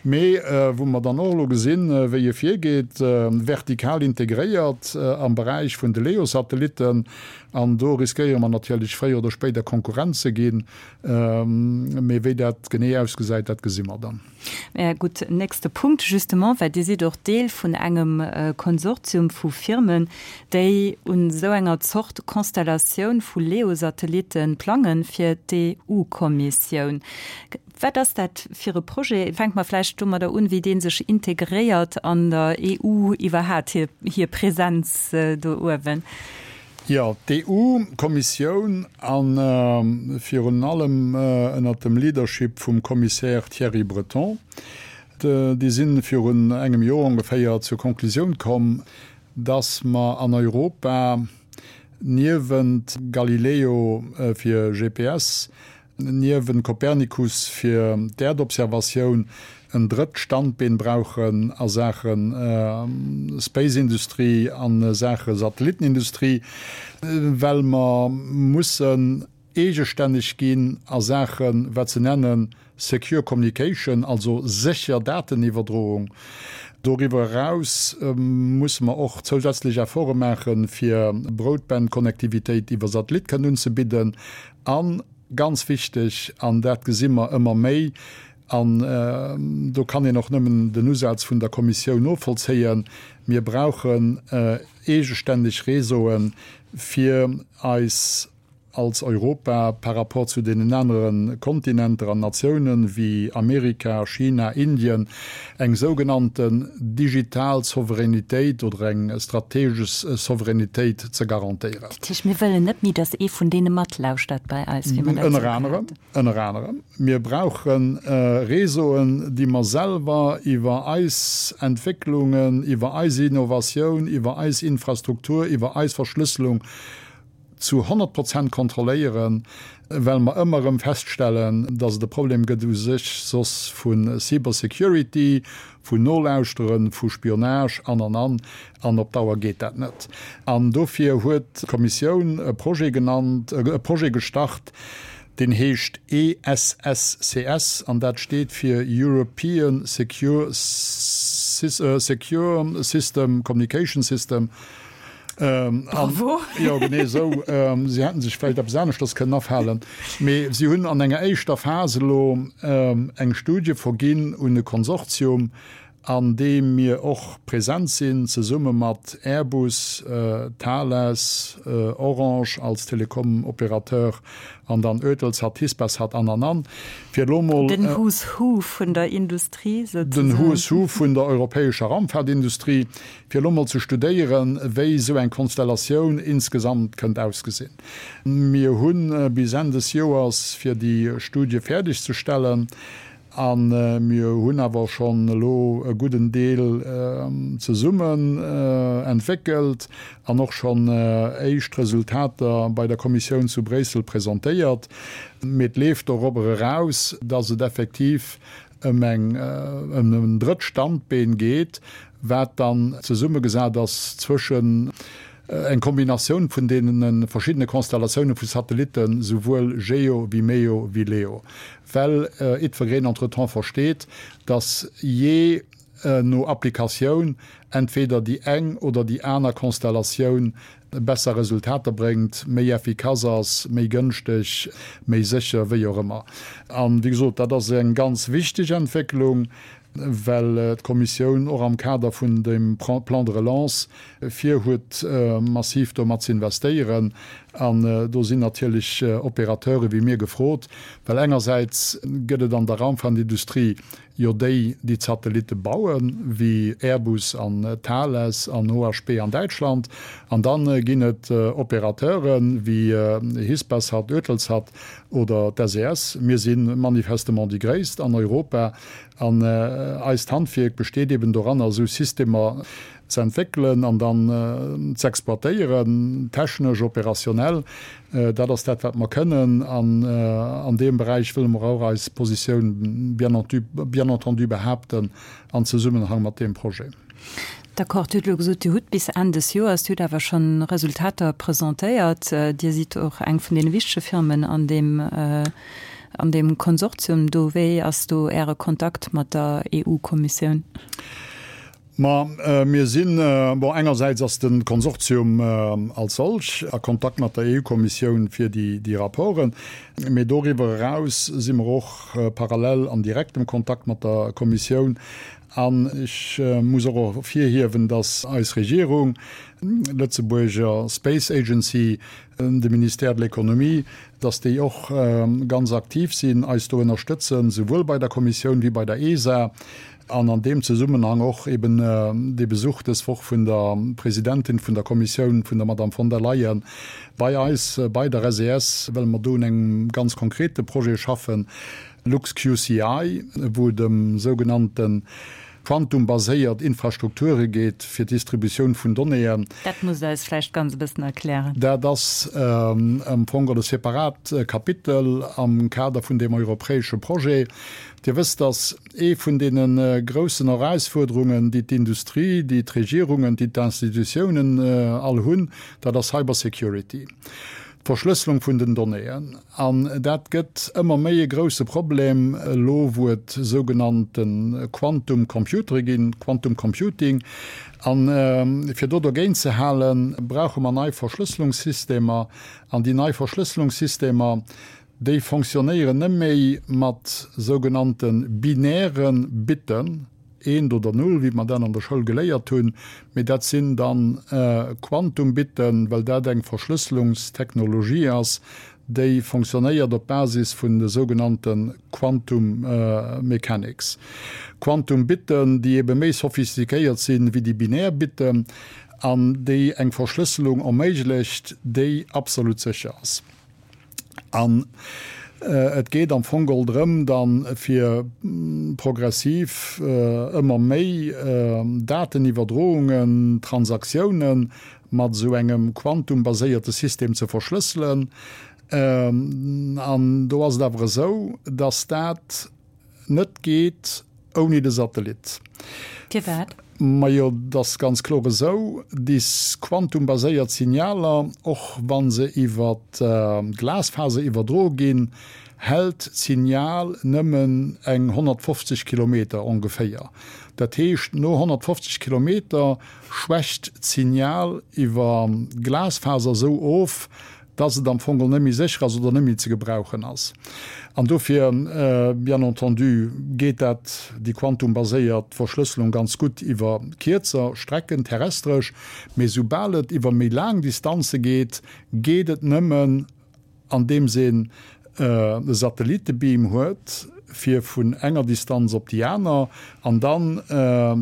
mee wou mer dann och elo gesinn, wéi e virgeet, vertikal integréiert am Beräich vun de LEO-Satellitten. An do riskéiere mer natierlech fréier oder spéider Konkurrent ze ginn. Mee wéi dat genee ausgesäit, dat gesi mer dann. Mä gutt, nächste Punkt, justement, well Dir sidd och Deel vun engem Konsortium vu Firmen, déi un esou enger Zort Constellatioun vu LEO-Satellitte plangen fir d'EU-Kommissioun. Wat ass dat fir e Projet? Fänke mer vläicht domadder un, wéi dee sech integréiert an der EU iwwerhaapt, hir Präsenz do uewen. Jo, d'EU-Kommissioun a virun allem ënnert dem Leadership vum Commissaire Thierry Breton, déi si virun engem Joer ongeféier zur Konklusioun komm, datt mer an Europa niewent Galileo fir GPS niewent Copernicus fir d'Äerdobservatioun en drëtt Standbeen brauchen a Saache Space-Industrie, a Saache Satellittenindustrie, well mer mussen eegestänneg ginn a Saache wat se nennen secure communication, also sécher Dateniwwerdroung. Doriwwer eraus musse mer och zousätzlech Efforte maachen, fir Broadband-Connectivitéit iwwer Satellit kënnen unzebidden. A ganz wichteg, an dat gesi mer ëmmer méi, an do kann een och nëmmen den Usaz vun der Kommissioun novollzéien, Mir brauchen eegestänneg Réseaue fir eis als Europa par rapport zu deenen anere Kontinenter an Natiounen wéi Amerika, China, Indien, eng sougenannten digital Souveränitéit oder eng strategesch Souveränitéit ze garantéieren. Dat heescht, mir wëllen net méi, datt ee vun deene matlauschtert bei eis, wéi mer dat Ënner anerem, ënner anerem. Mir brauche Réseauen, déi mer selwer iwwer eis Entwécklungen, iwwer eis Innovatioun, iwwer eis Infrastruktur, iwwer eis Verschlësselung zu 100 Prozent kontrolléieren, well mer ëmmer erëm feststellen, dass et e Problem gëtt u sech soss vu Cybersecurity, vun Nolauschteren, vu Spionage an, an, an. An op Dauer geet dat net. An dofir huet d'Kommissioun e Projet genannt, e Projet gestart, Deen heescht ESSCS an dat steet fir European Secure Secure System Communication System. Bravo! Jo, genee esou. Si hätten sech vläicht eppes aneschters kënnen afalen. Mee si hunn an enger éischter Phas elo eng Studie verginn un e Konsortium, an deem mir och present sinn, zesumme mat Airbus, Thales, Orange als Telekom-Opérateur an dann Eutelsat, Hispasat an, an, an, fir elo mol. Den Who's Who vun der Industrie souzesoen. Den Who's Who vun der europäescher Raumfahrtindustrie, fir elo mol ze studéieren, wéi esou eng Konstellatioun insgesamt kënnt ausgesinn. Mir hu bis Enn des Joers, fir déi Studie fäerdegzestellen. A mir hunn awer schonn elo e gudden Deel zesummen entwéckelt an och schonn éischt Resultater bei der Kommissioun zu Bréissel presentéiert. Mee et leeft dorobber eraus, dass et effektiv ëm eng, ëm en drëtt Standbeen geet, wat dann zesummegesat ass zwëschen Eng Kombinatioun vun deene verschiddene Konstellatioune vu Satellitten, souwuel GEO wéi MEO wéi LEO. Well jiddwereen entretemps versteet, datt jee no Applikatioun entweder déi eng oder déi aner Konstellatioun besser Resultater bréngt, méi effikass ass, méi gënschteg, méi sécher, wéi och ëmmer. An, wéi gesot, dat ass eng ganz wichteg Entwécklung, well d'Kommissioun och am Kader vun dem Plan de relance vir huet, massiv domat ze investéieren. An do sinn natierlech Opérateure wéi mir gefrot, well engersäits gëtt et an der Raumfahrtindustrie jo déi, déi d'Satellitte bauen, wéi Airbus an Thales an OHB an Däitschland, an da ginn et Opérateure wéi Hispasat, Eutelsat oder d'SES. Mir si manifestement déi gréisst an Europa an eist Handwierk besteet eben doranner, esou Systemer ze entwéckelen an dann z'exploitéieren, technesch, opérationnel. Dat ass dat, wat mer kënnen. An an deem Beräich wëlle mer och eis Positioun bien entendu behaapten an Zesummenhang mat deem Projet. D'accord. Dir hutt elo gesot, Dir hutt bis Enn des Joers, Dir hutt awer schonn Resultater presentéiert. Dir sidd och eng vun deene wichtege Firmen an deem, an deem Konsortium do. Wéi ass do Äre Kontakt mat der EU-Kommissioun? Ma mir sinn, bon, engersäits ass de Konsortium als solch a Kontakt mat der EU-Kommissioun fir déi Rapporten, mee doriwwer eraus si mer och parallel an direktem Kontakt mat der Kommissioun. An ech muss och ervirhiewen, datt eis Regierung, d'Lëtzebuerger Space Agency, de Ministère de l'Économie, datt déi och ganz aktiv sinn, eis do ënnerstëtzen, souwuel bei der Kommissioun wéi bei der ESA. An an deem Zesummenhang och eben dee Besuch dës Woch vun der Presidentin vun der Kommissioun, vun der Madame von der Leyen, bei eis, bei der SES, well mer do un engem ganz konkrete Projet schaffen, LuxQCI, wou et ëm sougenannte quantumbaséiert Infrastrukture geet fir d'Distributioun vun Donnéeën. Dat musst Der eis vläicht ganz e bëssen erklären. Dat ass am Fong e separat Kapitel am Kader vun deem europäesche Projet. Dir wësst, dass Ee vun deene groussen Erausfuerderungen, déi d'Industrie, déi d'Regierungen, déi d'Institutiounen all hunn, dat ass Cybersecurity, d'Verschlësselung vun den Donnéeën. An dat gëtt ëmmer méi e grousse Problem elo, wou et sougenannte Quantum Computere ginn, Quantum Computing. A fir do dogéint ze halen, brauche mer nei Verschlësselungssystemer. An déi nei Verschlësselungssystemer, Déi fonctionnéieren net méi mat sougenannte binäre Bitten, eent oder null, wéi mer dat an der Schoul geléiert hunn, mee dat sinn dann Quantumbitten, well dat eng Verschlësselungstechnologie ass, déi fonctionnéiert op Basis vun de sougenannte Quantum Mechanics. Quantumbitten, déi ebe méi sophistiquéiert sinn wéi déi binär Bitten an déi eng Verschlësselung erméiglecht, déi absolut sécher ass. An et geet am Fong geholl drëm, da fir progressiv ëmmer méi Dateniwwerdroungen, Transaktiounen mat esou engem quantumbaséierte System ze verschlësselen. An do ass et awer esou, dass dat net geet ouni de Satellit. Firwat? Majo, et ass ganz kloer esou, déi quantumbaséiert Signaler, och wa se iwwer d'Glasfaser iwwerdroe ginn, hält d'Signal nëmmen eng 150 Kilometer ongeféier. Dat heescht, no 150 Kilometer schwächt d'Signal iwwer d'Glasfaser esou of, dass et am Fong net méi sécher ass oder net méi ze gebrauchen ass. An dofir, bien entendu, geet dat, déi quantumbaséiert Verschlësselung ganz gutt iwwer kierzer Strecken terrestresch, mee soubal et iwwer méi laang Distanze geet, geet et nëmmen, andeems een e Satellittebeam huet, fir vun enger Distanz op déi aner an dann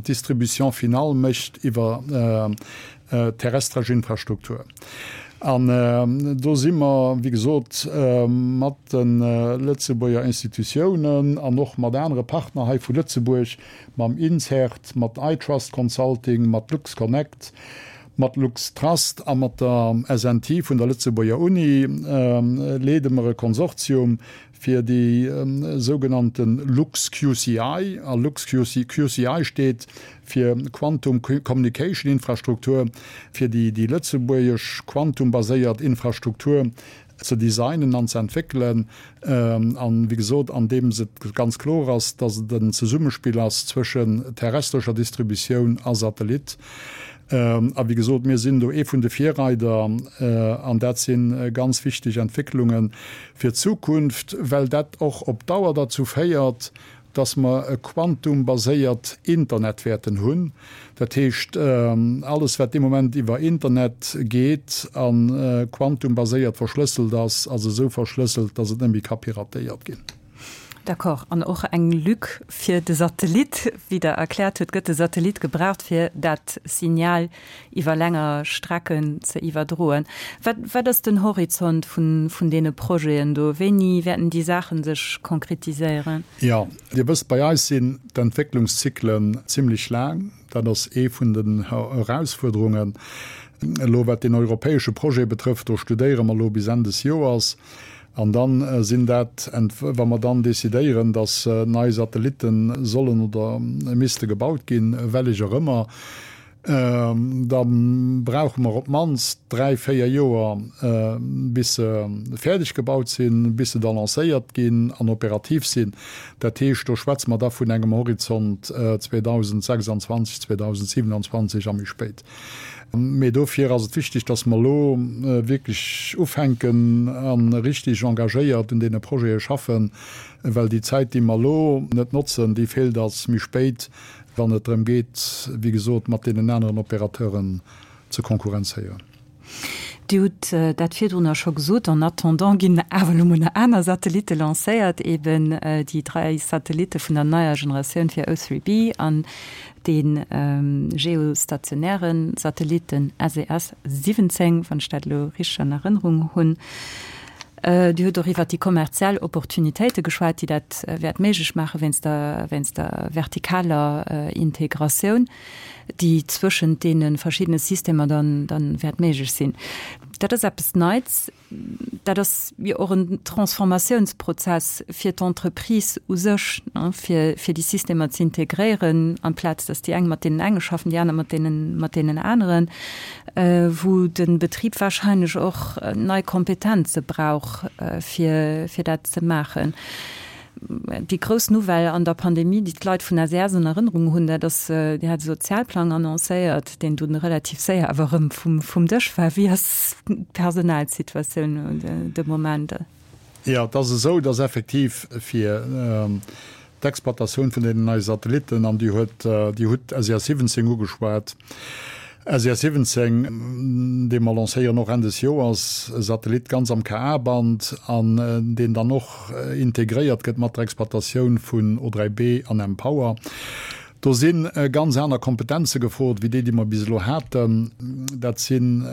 d'Distribution finale mécht iwwer terrestresch Infrastruktur. An do si mer, wéi gesot, mat de Lëtzebuerger Institutiounen an och mat anere Partner hei vu Lëtzebuerg, mam INCERT, mat iTrust Consulting, mat LuxConnect, mat LuxTrust a mat der SNT vun der Lëtzebuerger Uni, leede mer e Konsortium fir déi sougenannte LuxQCI, a LuxQCI steet fir Quantum Communication Infrastruktur, fir déi lëtzebuergesch quantumbaséiert Infrastruktur ze designen an ze entwéckelen, an, wéi gesot, andeems et ganz kloer ass, dass et en Zesummespill ass zwëschen terrestrescher Distributioun a Satellit. A wéi gesot, mir sinn do ee vun de Virreider an dat si ganz wichteg Entwécklunge fir d'Zukunft, well dat och op Dauer derzou féiert, dass mer e quantumbaséiert Internet wäerten hunn. Dat heescht, alles wat dee Moment iwwer Internet geet a quantumbaséiert verschlësselt ass, ass esou verschlësselt, dass et net méi ka piratéiert ginn. D'accord. An och eng Lück fir de Satellit. Wéi Der erkläert hutt, gëtt de Satellit gebraucht, fir dat Signal iwwer länger Strecken ze iwwerdroen. Wat, wat ass den Horizont vun, vun deene Projeten do? Wéini wäerten déi Saache sech konkretiséieren? Jo, Dir wësst, bei eis sinn d'Entwécklungszyklen zimlech laang. Dat ass ee vun den Erausfuerderungen. Elo wat deen europäesche Projet betrëfft, do studéiere mer elo bis Enn des Joers. An da sinn dat, wa mer dann decidéieren, datt nei Satellitte sollen oder misste gebaut ginn, wellech och ëmmer, da brauche mer op d'mannst dräi, véier Joer, bis se fäerdeg gebaut sinn, bis se da lancéiert ginn an operativ sinn. Dat heescht, do schwätze mer da vun engem Horizont 2026, 2027 a méi spéit. Mee dofir ass et wichteg, dass mer elo wierklech ufänken a richtig engagéiert un deene Projete schaffen, well déi Zäit, déi mer elo net notzen, déi feelt eis méi spéit, wann et drëm geet, wéi gesot, mat deenen aneren Opérateuren ze konkurrenzéieren. Dir hutt dat virdrunner scho gesot, en attendant ginn awer elo mol nach aner Satellitte lancéiert, eben déi dräi Satellitte vun der neier Generatioun fir O3b an dee geostationäre Satellit, den SES 17, wann ech dat elo richteg an Erënnerung hunn. Dir hutt och iwwert déi kommerziell Opportunitéite geschwat, déi dat wäert méiglech maache wéinst der, wéinst der vertikaler Integratioun, déi zwëschent deene verschiddene Systemer dann, dann wäert méiglech sinn. Dat ass eppes Neits. Dat ass jo och en Transformatiounsprozess fir d'Entreprise u sech, fir, fir déi Systemer ze integréieren, amplaz datt déi eng mat deenen enge schaffen, déi aner mat deenen, mat deenen aneren, wou de Betrib wahrscheinlech och nei Kompetenze brauch, fir, fir dat ze maachen. Déi grouss Nouvelle an der Pandemie, déi d'Leit vun SES an Erënnerung hunn, dat ass, Dir hat e Sozialplang annoncéiert, deen dunn relativ séier awer erëm vum Dësch war. Wéi ass d'Personalsituatioun de Moment? Jo, et ass esou, dass effektiv fir d'Exploitatioun vun deenen neie Satellitten, an Dir huet, Dir hutt SES 17 ugeschwat, SES 17, dee mer lancéieren och Enn des Joers, e Satellit ganz am Ka-Band an deen dann och integréiert gëtt mat der Exploitatioun vun O3B an mPower. Do si ganz aner Kompetenze gefrot wéi déi, déi mer bis elo haten. Dat sinn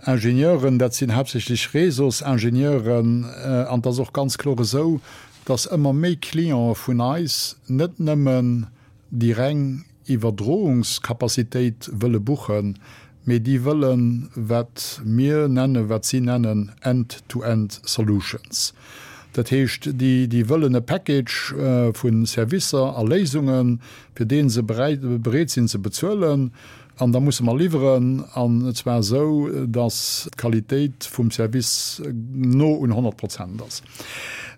Ingenieuren, dat sinn haaptsächlech Réseausingenieuren an et ass och ganz kloer esou, dass ëmmer méi Clientë vun eis net nëmmen déi reng Iwwerdroungskapazitéit wëlle buchen, mee déi wëllen, wat mir nennen, wat si nennen end-to-end solutions. Dat heescht, déi wëllen e Package vu Servicer a Léisungen, fir dee se bereet sinn ze bezuelen. An da musse mer liwweren, an zwar esou, datt d'Qualitéit vum Service no un 100 Prozent ass.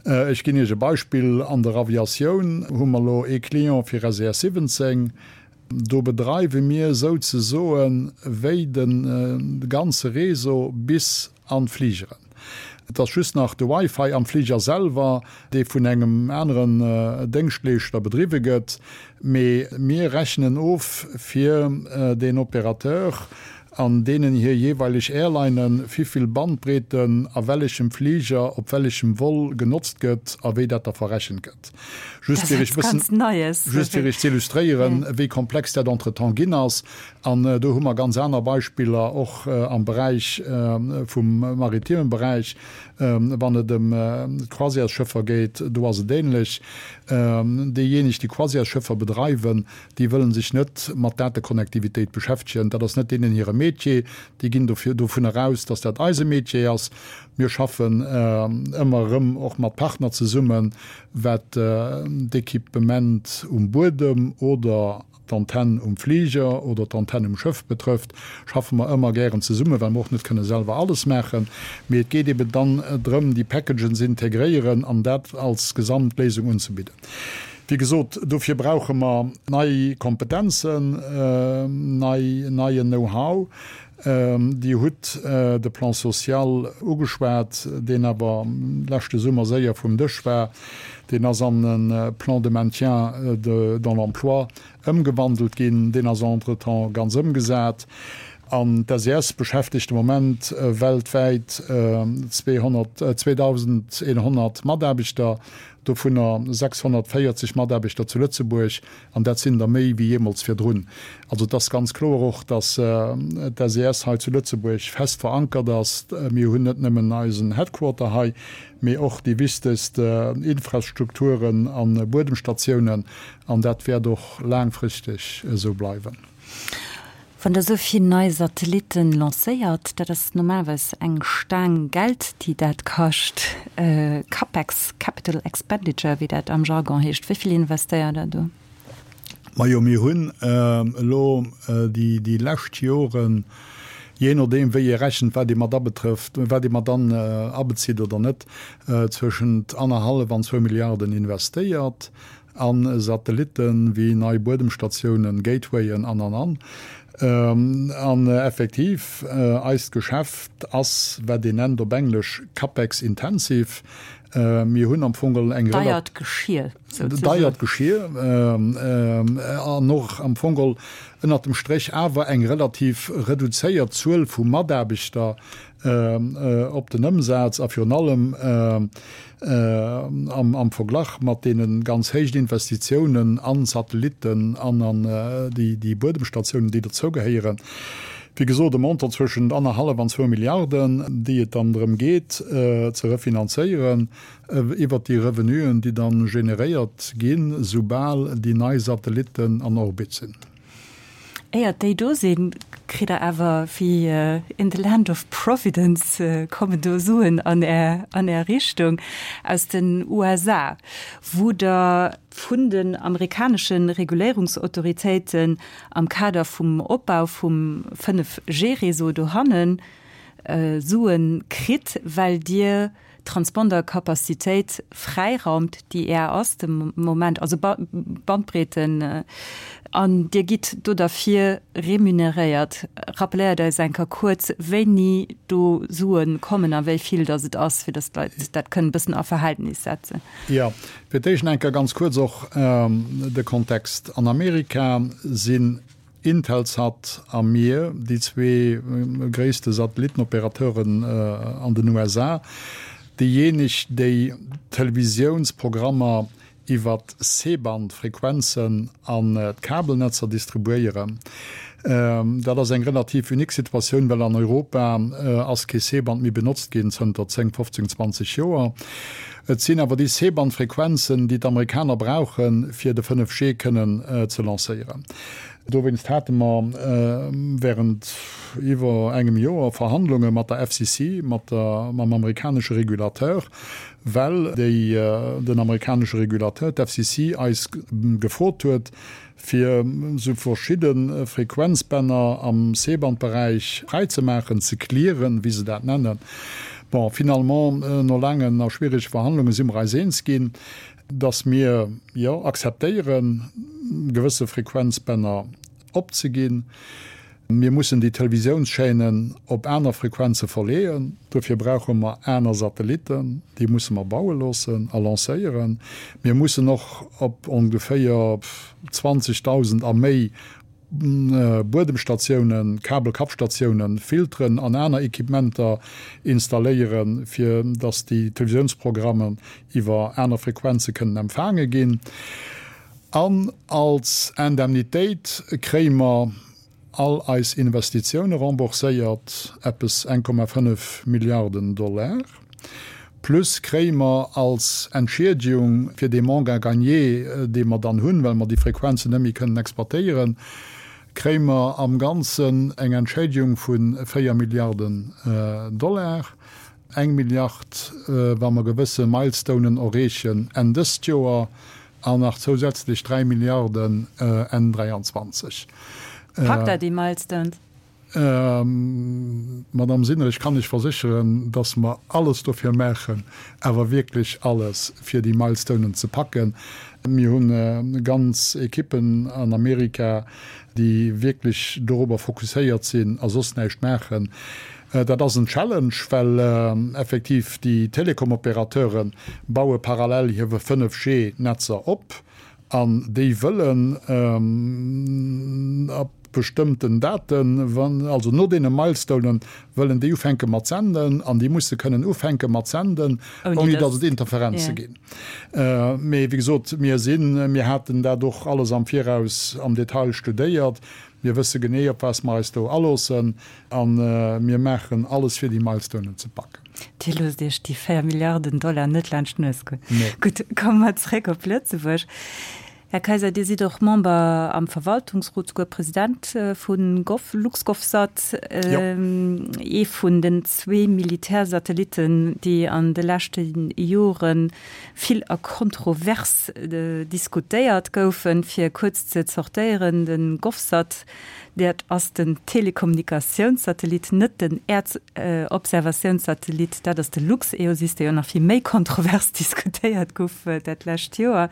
Ech ginn Iech e Beispill, An der Aviatioun hu mer elo ee Client fir SES 17. Do bedreiwe mir souzesoe wéi de ganze Réseau bis an d'Fligeren. Et ass just nach de Wi-Fi am Fliger selwer, dee vun engem aneren Déngschtleeschter bedriwwe gëtt, mee mir rechnen of fir deen Opérateur an deenen hir jeeweileg Airlinen, wivill Bandbreeten a wellechem Fliger op wellechem Vol genotzt gëtt a wéi dat da verrechent gëtt. Just fir iech bëssen, just fir iech ze illustréieren, wéi komplex dat entretemps ginn ass. An do hu mer ganz aner Beispiller, och am Beräich vum maritimen Beräich, wann et ëm d'Croisièresschëffer geet, do ass et ähnlech. Déijéineg, déi Croisièresschëffer bedreiwen, déi wëlle sech net mat Datekonnektivitéit beschäftegen. Dat ass net deenen hire Métier. Déi ginn dofir dovunner aus, dass dat eise Métier ass. Mir schaffen ëmmer erëm och mat Partner zesummen, wat d'Equipement um Buedem oder d'Antenn um Fliger oder d'Antenn um Schëff betrëfft, schaffe mer ëmmer gären zesummen, well mer och net kënne selwer alles maachen. Mee et geet eben dann drëm, déi Packagen ze integréieren an dat als Gesamtléisung unzebidden. Wéi gesot, dofir brauche mer nei Kompetenzen, nei, neien Know-how. Dir hutt de Plan social ugeschwat, deen awer leschte Summer séier vum Dësch war. Deen ass an e Plan de maintien dans l'emploi ëmgewandelt ginn. Deen ass entretemps ganz ëmgesat. An d'SES beschäftegt de Moment weltwäit 2.100 Mataarbechter, dovunner 640 Mataarbechter zu Lëtzebuerg. An dat sinn der méi wéi jeemools virdrun. Also et ass ganz kloer och, datt d'SES hei zu Lëtzebuerg fest verankert ass. Mir hunn net nëmmen eisen Headquarter hei, mee och déi wichtegst Infrastrukturen a Buedemstatiounen. An dat wäert och laangfristeg esou bleiwen. Wann Der esou vill nei Satellitten lancéiert, dat ass normalerweis eng Staang Geld, déi dat kascht, Capex, Capital Expenditure, wéi dat am Jargon heescht. Wéi vill investéiert Der do? Majo, mir hunn elo déi lescht Joren, jee nodeem wéi ee rechent, wat ee mat abetrëfft, wat ee mat an abezitt oder net, zwëschent annerhallef an zwou Milliarden investéiert. A Satellitten, wéi nei Buedemstatiounen, Gatewayen an an an. An effektiv, eist Geschäft ass, wat een nennt op Englesch capex intensive. Mir hunn am Fong geholl eng. Deiert Geschir, souzesoen. Deiert Geschir an och am Fong geholl ënnert dem Stréch awer eng relativ reduzéiert Zuel vu Mataarbechter op den Ëmsaz a virun allem am Verglach mat deene ganz héijen Investitiounen an Satellitten an an déi Buedemstatiounen, déi dozougehéieren. Wéi gesot, e Montant zwëschent annerhallef an zwou Milliarden, déi et dann drëm geet ze refinanzéieren iwwert déi Revenuen, déi da generéiert ginn, soubal déi nei Satellitten an Orbit sinn. Éiert déi do sinn, kritt der awer wéi in the land of providence kommen do Suen an Är, an Är Richtung aus den USA, wou Der vun den amerikanesche Reguléierungsautoritéiten am Kader vum Opbau vum 5G-Réseau dohanne Sue kritt, well Dir Transpondercapacitéit fräiraumt, déi Är ass de Moment, also Bandbreeten, an Dir gitt do derfir remuneréiert. Rappeléiert eis eng Kéier kuerz, wéini do Sue kommen a wéi vill datt et ass, fir datt d'Leit dat kënnen e bëssen a Verhältnis setzen. Jo, fir d'éischt eng Kéier ganz kuerz och de Kontext. An Amerika sinn Intelsat a mir, déi zwee gréisste Satellitenoperateuren an den USA, déijéineg, déi Televisiounsprogrammer iwwer C-Band-Frequenzen an d'Kabelnetzer distribuéieren. Dat ass eng relativ unique Situatioun, well an Europa ass kee C-Band méi benotzt ginn zënter 10, 15, 20 Joer. Et sinn awer déi C-Band-Frequenzen, déi d'Amerikaner brauchen, fir de 5G kënnen ze lancéieren. Dowéinst hate mer während iwwer engem Joer Verhandlunge mat der FCC, mat der, mam amerikanesche Regulateur, well déi, den amerikanesche Regulateur, d'FCC, eis gefrot huet, fir esou verschidde Frequenzbänner am C-Band-Beräich fräizemaachen, ze clearen, wéi se dat nennen. Bon, finalement, no laangen a schwierege Verhandlunge si mer eis eens ginn, dass mir, jo, akzeptéieren, gewësse Frequenzbänner opzeginn. Mir mussen déi Televisiounschaînen op aner Frequenze verleeën. Dofir brauche mer aner Satellitten. Déi musse mer baue loossen a lancéieren. Mir mussen och op ongeféier 20.000 a méi Buedemstatiounen, Kabelkappstatiounen, Filteren an aner Equipementer installéieren, fir dass déi Televisiounsprogrammen iwwer aner Frequenze kënnen empfaange ginn. An als Indemnitéit kréie mer all eis Investitioune rembourséiert, eppes 1,5 Milliarden Dollar. Plus kréie mer als Entschiedegung fir dee Manque à gagner, dee mer dann hunn, well mer déi Frequenzen net méi kënnen exploitéieren, kréie mer am Ganzen eng Entschädigung vu 4 Milliarden Dollar. Eng Milliard, wa mer gewësse Milestonen erreechen Enn dëst Joer, an nach zousätzlech 3 Milliarden Enn 23. Packt Der déi Milestones? Madamm Sinner, ech kann lech versécheren, dass mer alles dofir maachen, awer wierklech alles, fir déi Milestonen ze packen. Mir hu ganz Ekippen an Amerika, déi wierklech dorobber fokusséiert sinn a soss näischt maachen. Dat ass en Challenge, well effektiv déi Telekom-Opérateure baue parallel hir 5G-Netzer op an déi wëllen ab bestëmmten Daten, also no deene Milestonen, wëllen déi ufänke mat senden an déi musse kënnen ufänke mat senden, ouni datt et Interferenze ginn. Mee wéi gesot, mir sinn, mir haten dat och alles am Viraus am Detail studéiert. Mir wësse genee, op wat mer eis do aloossen. A mir maachen alles, fir déi Milestonen ze packen. Dir loosst Iech déi 4 Milliarden Dollar net laanscht d'Nues goen. Nee. Gutt, komme mer zréck op Lëtzebuerg. Här Kaiser, Dir sidd och Member am Verwaltungsrot, souguer President vu LuxGovSat, ee vun den zwee Militärsatellitten, déi an de leschte Jore vill a kontrovers diskutéiert goufen. Fir kuerz ze zortéieren, de GovSat, Dat ass den Telekommunikationssatellit, net den Äerdobservatiounssatellit. Dat ass de LuxEOSys, dee jo nach vill méi kontrovers diskutéiert gouf dat lescht Joer.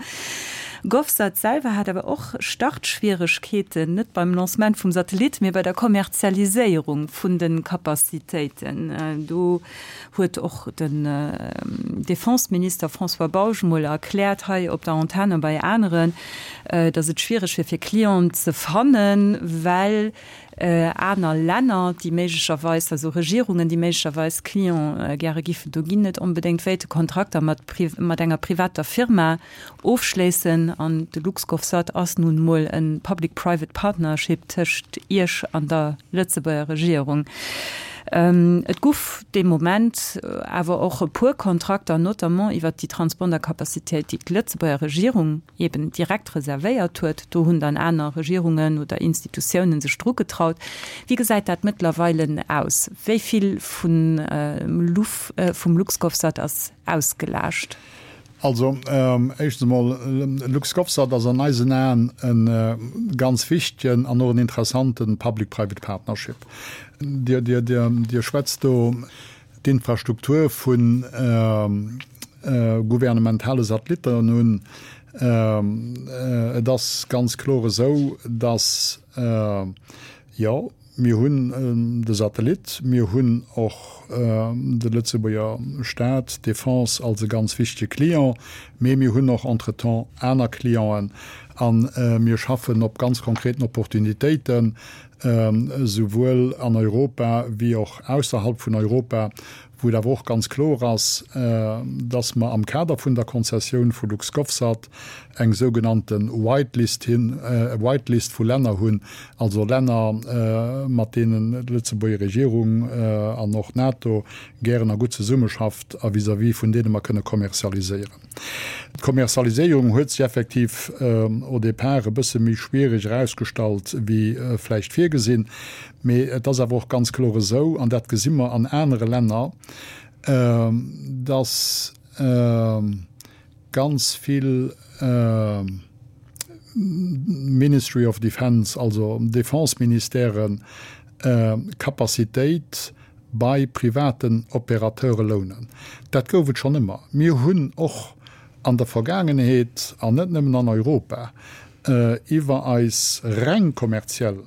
GovSat selwer hat awer och Startschwieregkeeten, net beim Lancement vum Satellit, mee bei der Kommerzialiséierung vun de Capacitéiten. Do huet och den Defenseminister François Bausch mol erkläert hei op der Antenn a bei aneren, datt et schwiereg wier fir Clienten ze fannen, well aner Länner, déi méiglecherweis, also Regierungen, déi méiglecherweis Client gäre giffen do ginn, net onbedéngt wéilte Kontrakter mat mat enger privater Firma ofschléissen. An de LuxGovSat ass nun emol e Public-Private Partnership tëscht Iech an der Lëtzebuerger Regierung. Et guff dee Moment awer och e puer Kontrakter, notamment iwwert déi Transpondercapacitéit, déi d'Lëtzebuerger Regierung eben direkt reservéiert huet. Do hunn dann aner Regierungen oder Institutiounen sech dru getraut. Wéi gesäit dat mëttlerweile aus? Wéi vill vum LuxGovSat ass ausgelaascht? Also, éischtens emol, LuxGovSat ass an eisen Aen e ganz wichtegen an och en interessante Public-Private Partnership. Dir, Dir, Dir, Dir schwätzt do d'Infrastruktur vu gouvernementale Satellitten un. Et ass ganz kloer esou, dass, jo, Mir hunn de Satellit, mir hunn och de Lëtzebuerger Staat, d'Defense als e ganz wichtege Client, mee mir hunn och entretemps aner Clienten a mir schaffen op ganz konkreten Opportunitéiten, souwuel an Europa wéi och ausserhalb vun Europa, wou. Wou et awer och ganz kloer ass, dass mer am Kader vun der Konzessioun vu LuxGovSat eng sougenannte White List hin, White List vu Länner hunn, also Länner, mat deenen d'Lëtzebuerger Regierung an och d'NATO gären a gutt zesummeschafft a vis-à-vis vun deene mer kënne kommerzialiséieren. D'Kommerzialiséierung huet sech effektiv au départ e bësse méi schwierig erausgestallt wéi vläicht virgesinn. Mee et ass awer och ganz kloer esou, an dat gesi mer an anere Länner, dass ganz vill Ministry of Defence, also Defense-Ministèren, Capacitéit bei privaten Opérateure lounen. Dat gouf et schonn ëmmer. Mir hunn och an der Vergaangenheet, an net nëmmen an Europa, iwwer eis reng kommerziell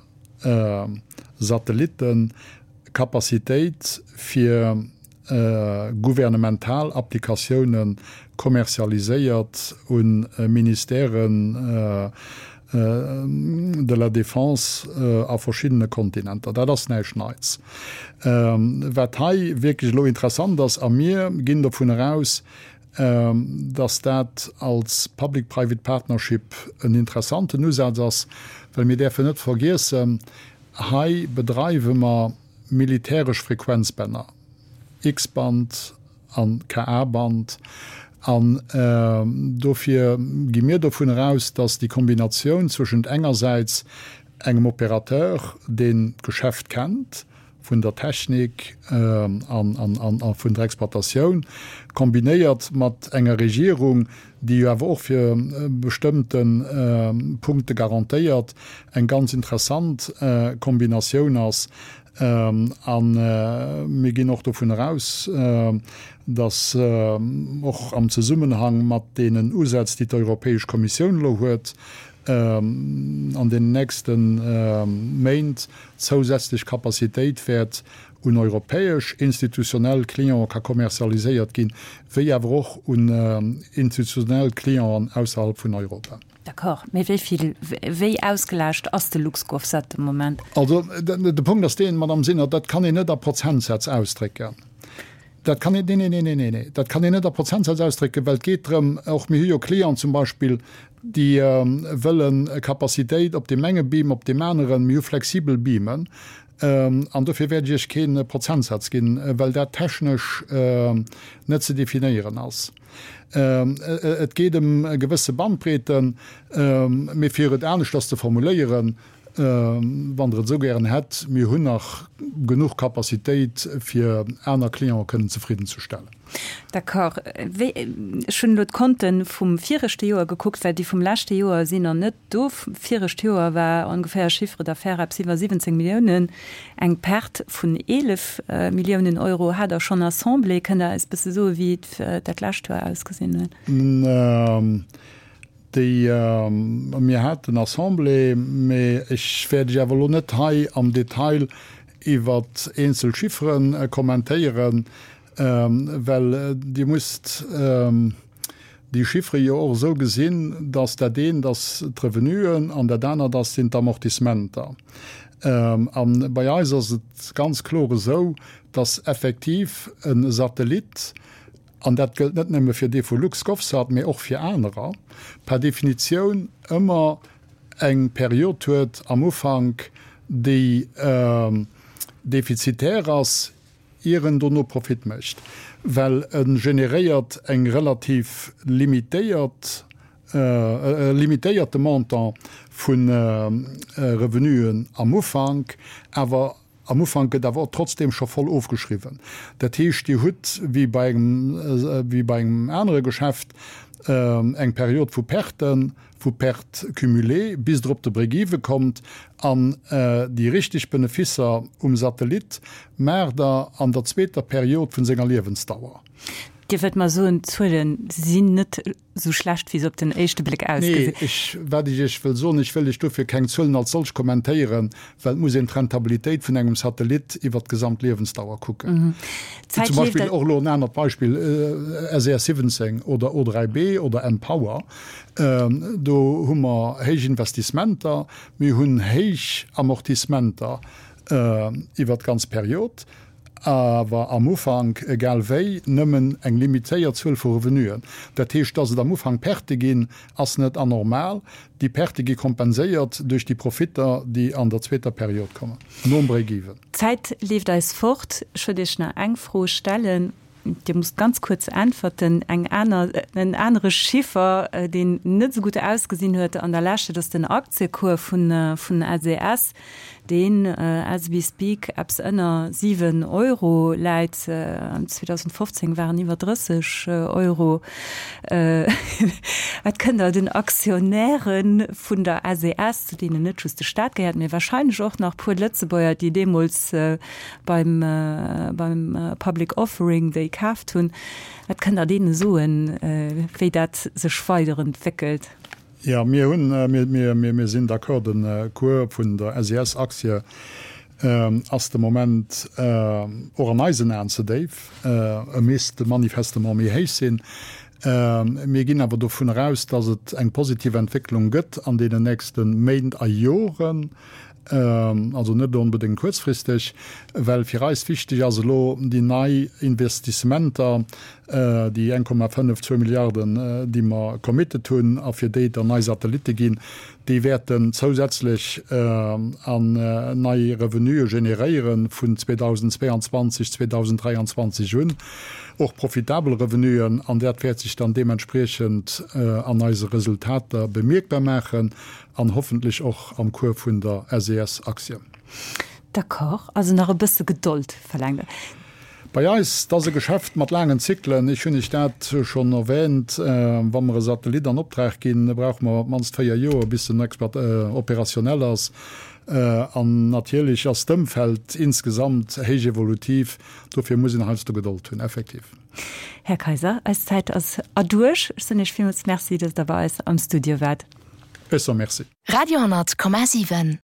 Satellitten Capacitéit fir gouvernemental Applikatioune kommerzialiséiert u Ministèren de la Défense a verschiddene Kontinenter. Dat ass näischt Neits. Wat hei wierklech elo interessant ass, a mir ginn dovun eraus, dass dat als Public-Private Partnership en interessanten Usaz ass, well mir däerfen net vergiessen, hei bedreiwe mer militäresch Frequenzbänner, X-Band an Ka-Band, an dofir gi mir dovun eraus, dass déi Kombinatioun zwëschent engersäits engem Opérateur, deen d'Geschäft kennt, vun der Technik a vun der Exploitatioun, kombinéiert mat enger Regierung, déi jo awer och fir bestëmmte Punkte garantéiert, eng ganz interessant Kombinatioun ass. A mir ginn och dovun eraus, datt och am Zesummenhang mat deenen Usätz, déi d'Europäesch Kommissioun elo huet, an den nächste Méint zousätzlech Capacitéit wäert un europäesch institutionell Clientë ka kommerzialiséiert ginn, wéi awer och un institutionell Clienten ausserhalb vun Europa. D'accord. Mee wéi vill, wéi ausgelaascht ass de LuxGovSat de Moment? Also, de Punkt ass deen, Madame Sinner, dat kann een net a Prozentsätz ausdrécken. Dat kann een, nee, nee, nee, nee, nee, dat kann een net a Prozentsätz ausdrécken, well et geet drëm, och mir hu jo Clienten zum Beispill, déi wëlle Capacitéit op deem enge Beam, op deem aneren. Mir hu flexibel Beamen an dofir wäert ech Iech kee Prozentsaz ginn, well dat technesch net ze definéieren ass. Et geet ëm gewësse Bandbreeten, mee fir et aneschters ze formuléieren, Wann Der et esou gären hätt, mir hunn nach genuch Capacitéit, fir aner Clientë kënnen zefriddenzestellen. D'accord. Wéi, ech hunn elo d'Konte vum viregte Joer gekuckt, well déi vum leschte Joer sinn nach net do. Virescht Joer war ongeféier Chiffre d'affaires eppes iwwer 17 Milliounen, eng Perte vun 11 Milliounen Euro. Hat Der schonn Assemblée? Kënnt Der eis e bësse soen, wéi dat lescht Joer ausgesinn huet? Déi, mir haten Assemblée, mä ech wäert Iech awer elo net hei am Detail iwwer eenzel Chiffere kommentéieren, well Dir musst déi Chiffere jo och esou gesinn, dass dat eent ass d'Revenuen an dat anert ass sinn d'Amortissementer. A bei eis ass et ganz kloer esou, dass effektiv e Satellit, an dat gëllt net nëmme fir dee vu LuxGovSat, mee och fir anerer, per Definitioun ëmmer eng Period huet am Ufank, déi defizitär ass, ier en dono Profit mécht, well e generéiert eng relativ limitéiert, e limitéierte Montant vu Revenuen am Ufank, awer Am Ufank gëtt awer och trotzdeem scho voll ofgeschriwwen. Dat heescht, Dir hutt, wéi bei engem, wéi bei engem anere Geschäft, eng Period vu Perten, vu Pertes cumulées, bis Der op de Break-even kommt. An déi richteg Benefisser um Satellit maacht Der an der zweeter Period vun senger Liewensdauer. Dir wëllt mer soen, d'Zuele sinn net esou schlecht, wéi se op den éischte Bléck ausgesinn? Nee, ech, wat ech Iech wëll soen, ech wëll Iech dofir keng Zuelen als solch kommentéieren, well et muss een d'Rentabilitéit vun engem Satellit iwwert d'gesamt Liewensdauer kucken. Zum Beispill och elo en anert Beispill, SES 17 oder O3B oder mPower, do hu mer héich Investissementer, mir hunn héich Amortissementer iwwert d'ganz Period. Awer am Ufank, egal wéi, nëmmen eng limitéiert Zuel vu Revenuen. Dat heescht, dass et am Ufank Pertë ginn, ass net anormal. Déi Pertë gi kompenséiert duerch déi Profitter, déi an der zweeter Period kommen, nom Break-even. D'Zäit leeft eis fort. Ech wëllt Iech nach eng Fro stellen. Dir musst ganz kuerz äntwerten. Eng aner, en anere Chiffer, deen net esou gutt ausgesinn huet an der Lescht, dat ass den Aktiecours vun, vun SES, deen as we speak eppes ënner 7 Euro läit. 2015 waren iwwer 30 Euro. Wat kënnt Der den Aktionäre vun der SES, zu deenen net just de Staat gehéiert, mee wahrscheinlech och nach puer Lëtzebuerger, déi deemools beim beim Public Offering déi kaaft hunn. Wat kënnt Der deene soen, wéi dat sech weiderentwéckelt? Jo, mir hunn, mir, mir, mir sinn d'accord, de Cours vun der SES-Aktie ass de Moment och an eisen Aen ze déif. E misst manifestement méi héich sinn. Mir ginn awer dovun eraus, datt et eng positiv Entwécklung gëtt an deenen nächste Méint a Joren. Also net onbedéngt kuerzfristeg, well fir eis wichteg ass elo déi nei Investissementer, déi 1,5, zwou Milliarden, déi mer committed hunn a fir déi et dann nei Satellitte ginn, déi wäerten zousätzlech an nei Revenuë generéiere vun 2022, 2023 un, och profitabel Revenuen, an dat wäert sech dann deementspriechend an eise Resultater bemierkbar maachen. An hoffentlech och am Cours vun der SES-Aktie. D'accord, also nach e bësse Gedold verlaangt Der. Bei eis, dat ass e Geschäft mat laangen Zyklen. Ech hunn Iech dat schonn erwähnt. Wa mer e Satellit an Optrag ginn, brauche mer op d'mannst 4 Joer, bis en opérationnel ass. An natierlech ass d'Ëmfeld insgesamt héich evolutiv. Dofir muss een heiansdo Gedold hunn, effektiv. Här Kaiser, eis Zäit ass erduerch. Ech soen Iech villmools Merci, datt Der bei eis am Studio waart. Ech soe Merci. Radio 10,7.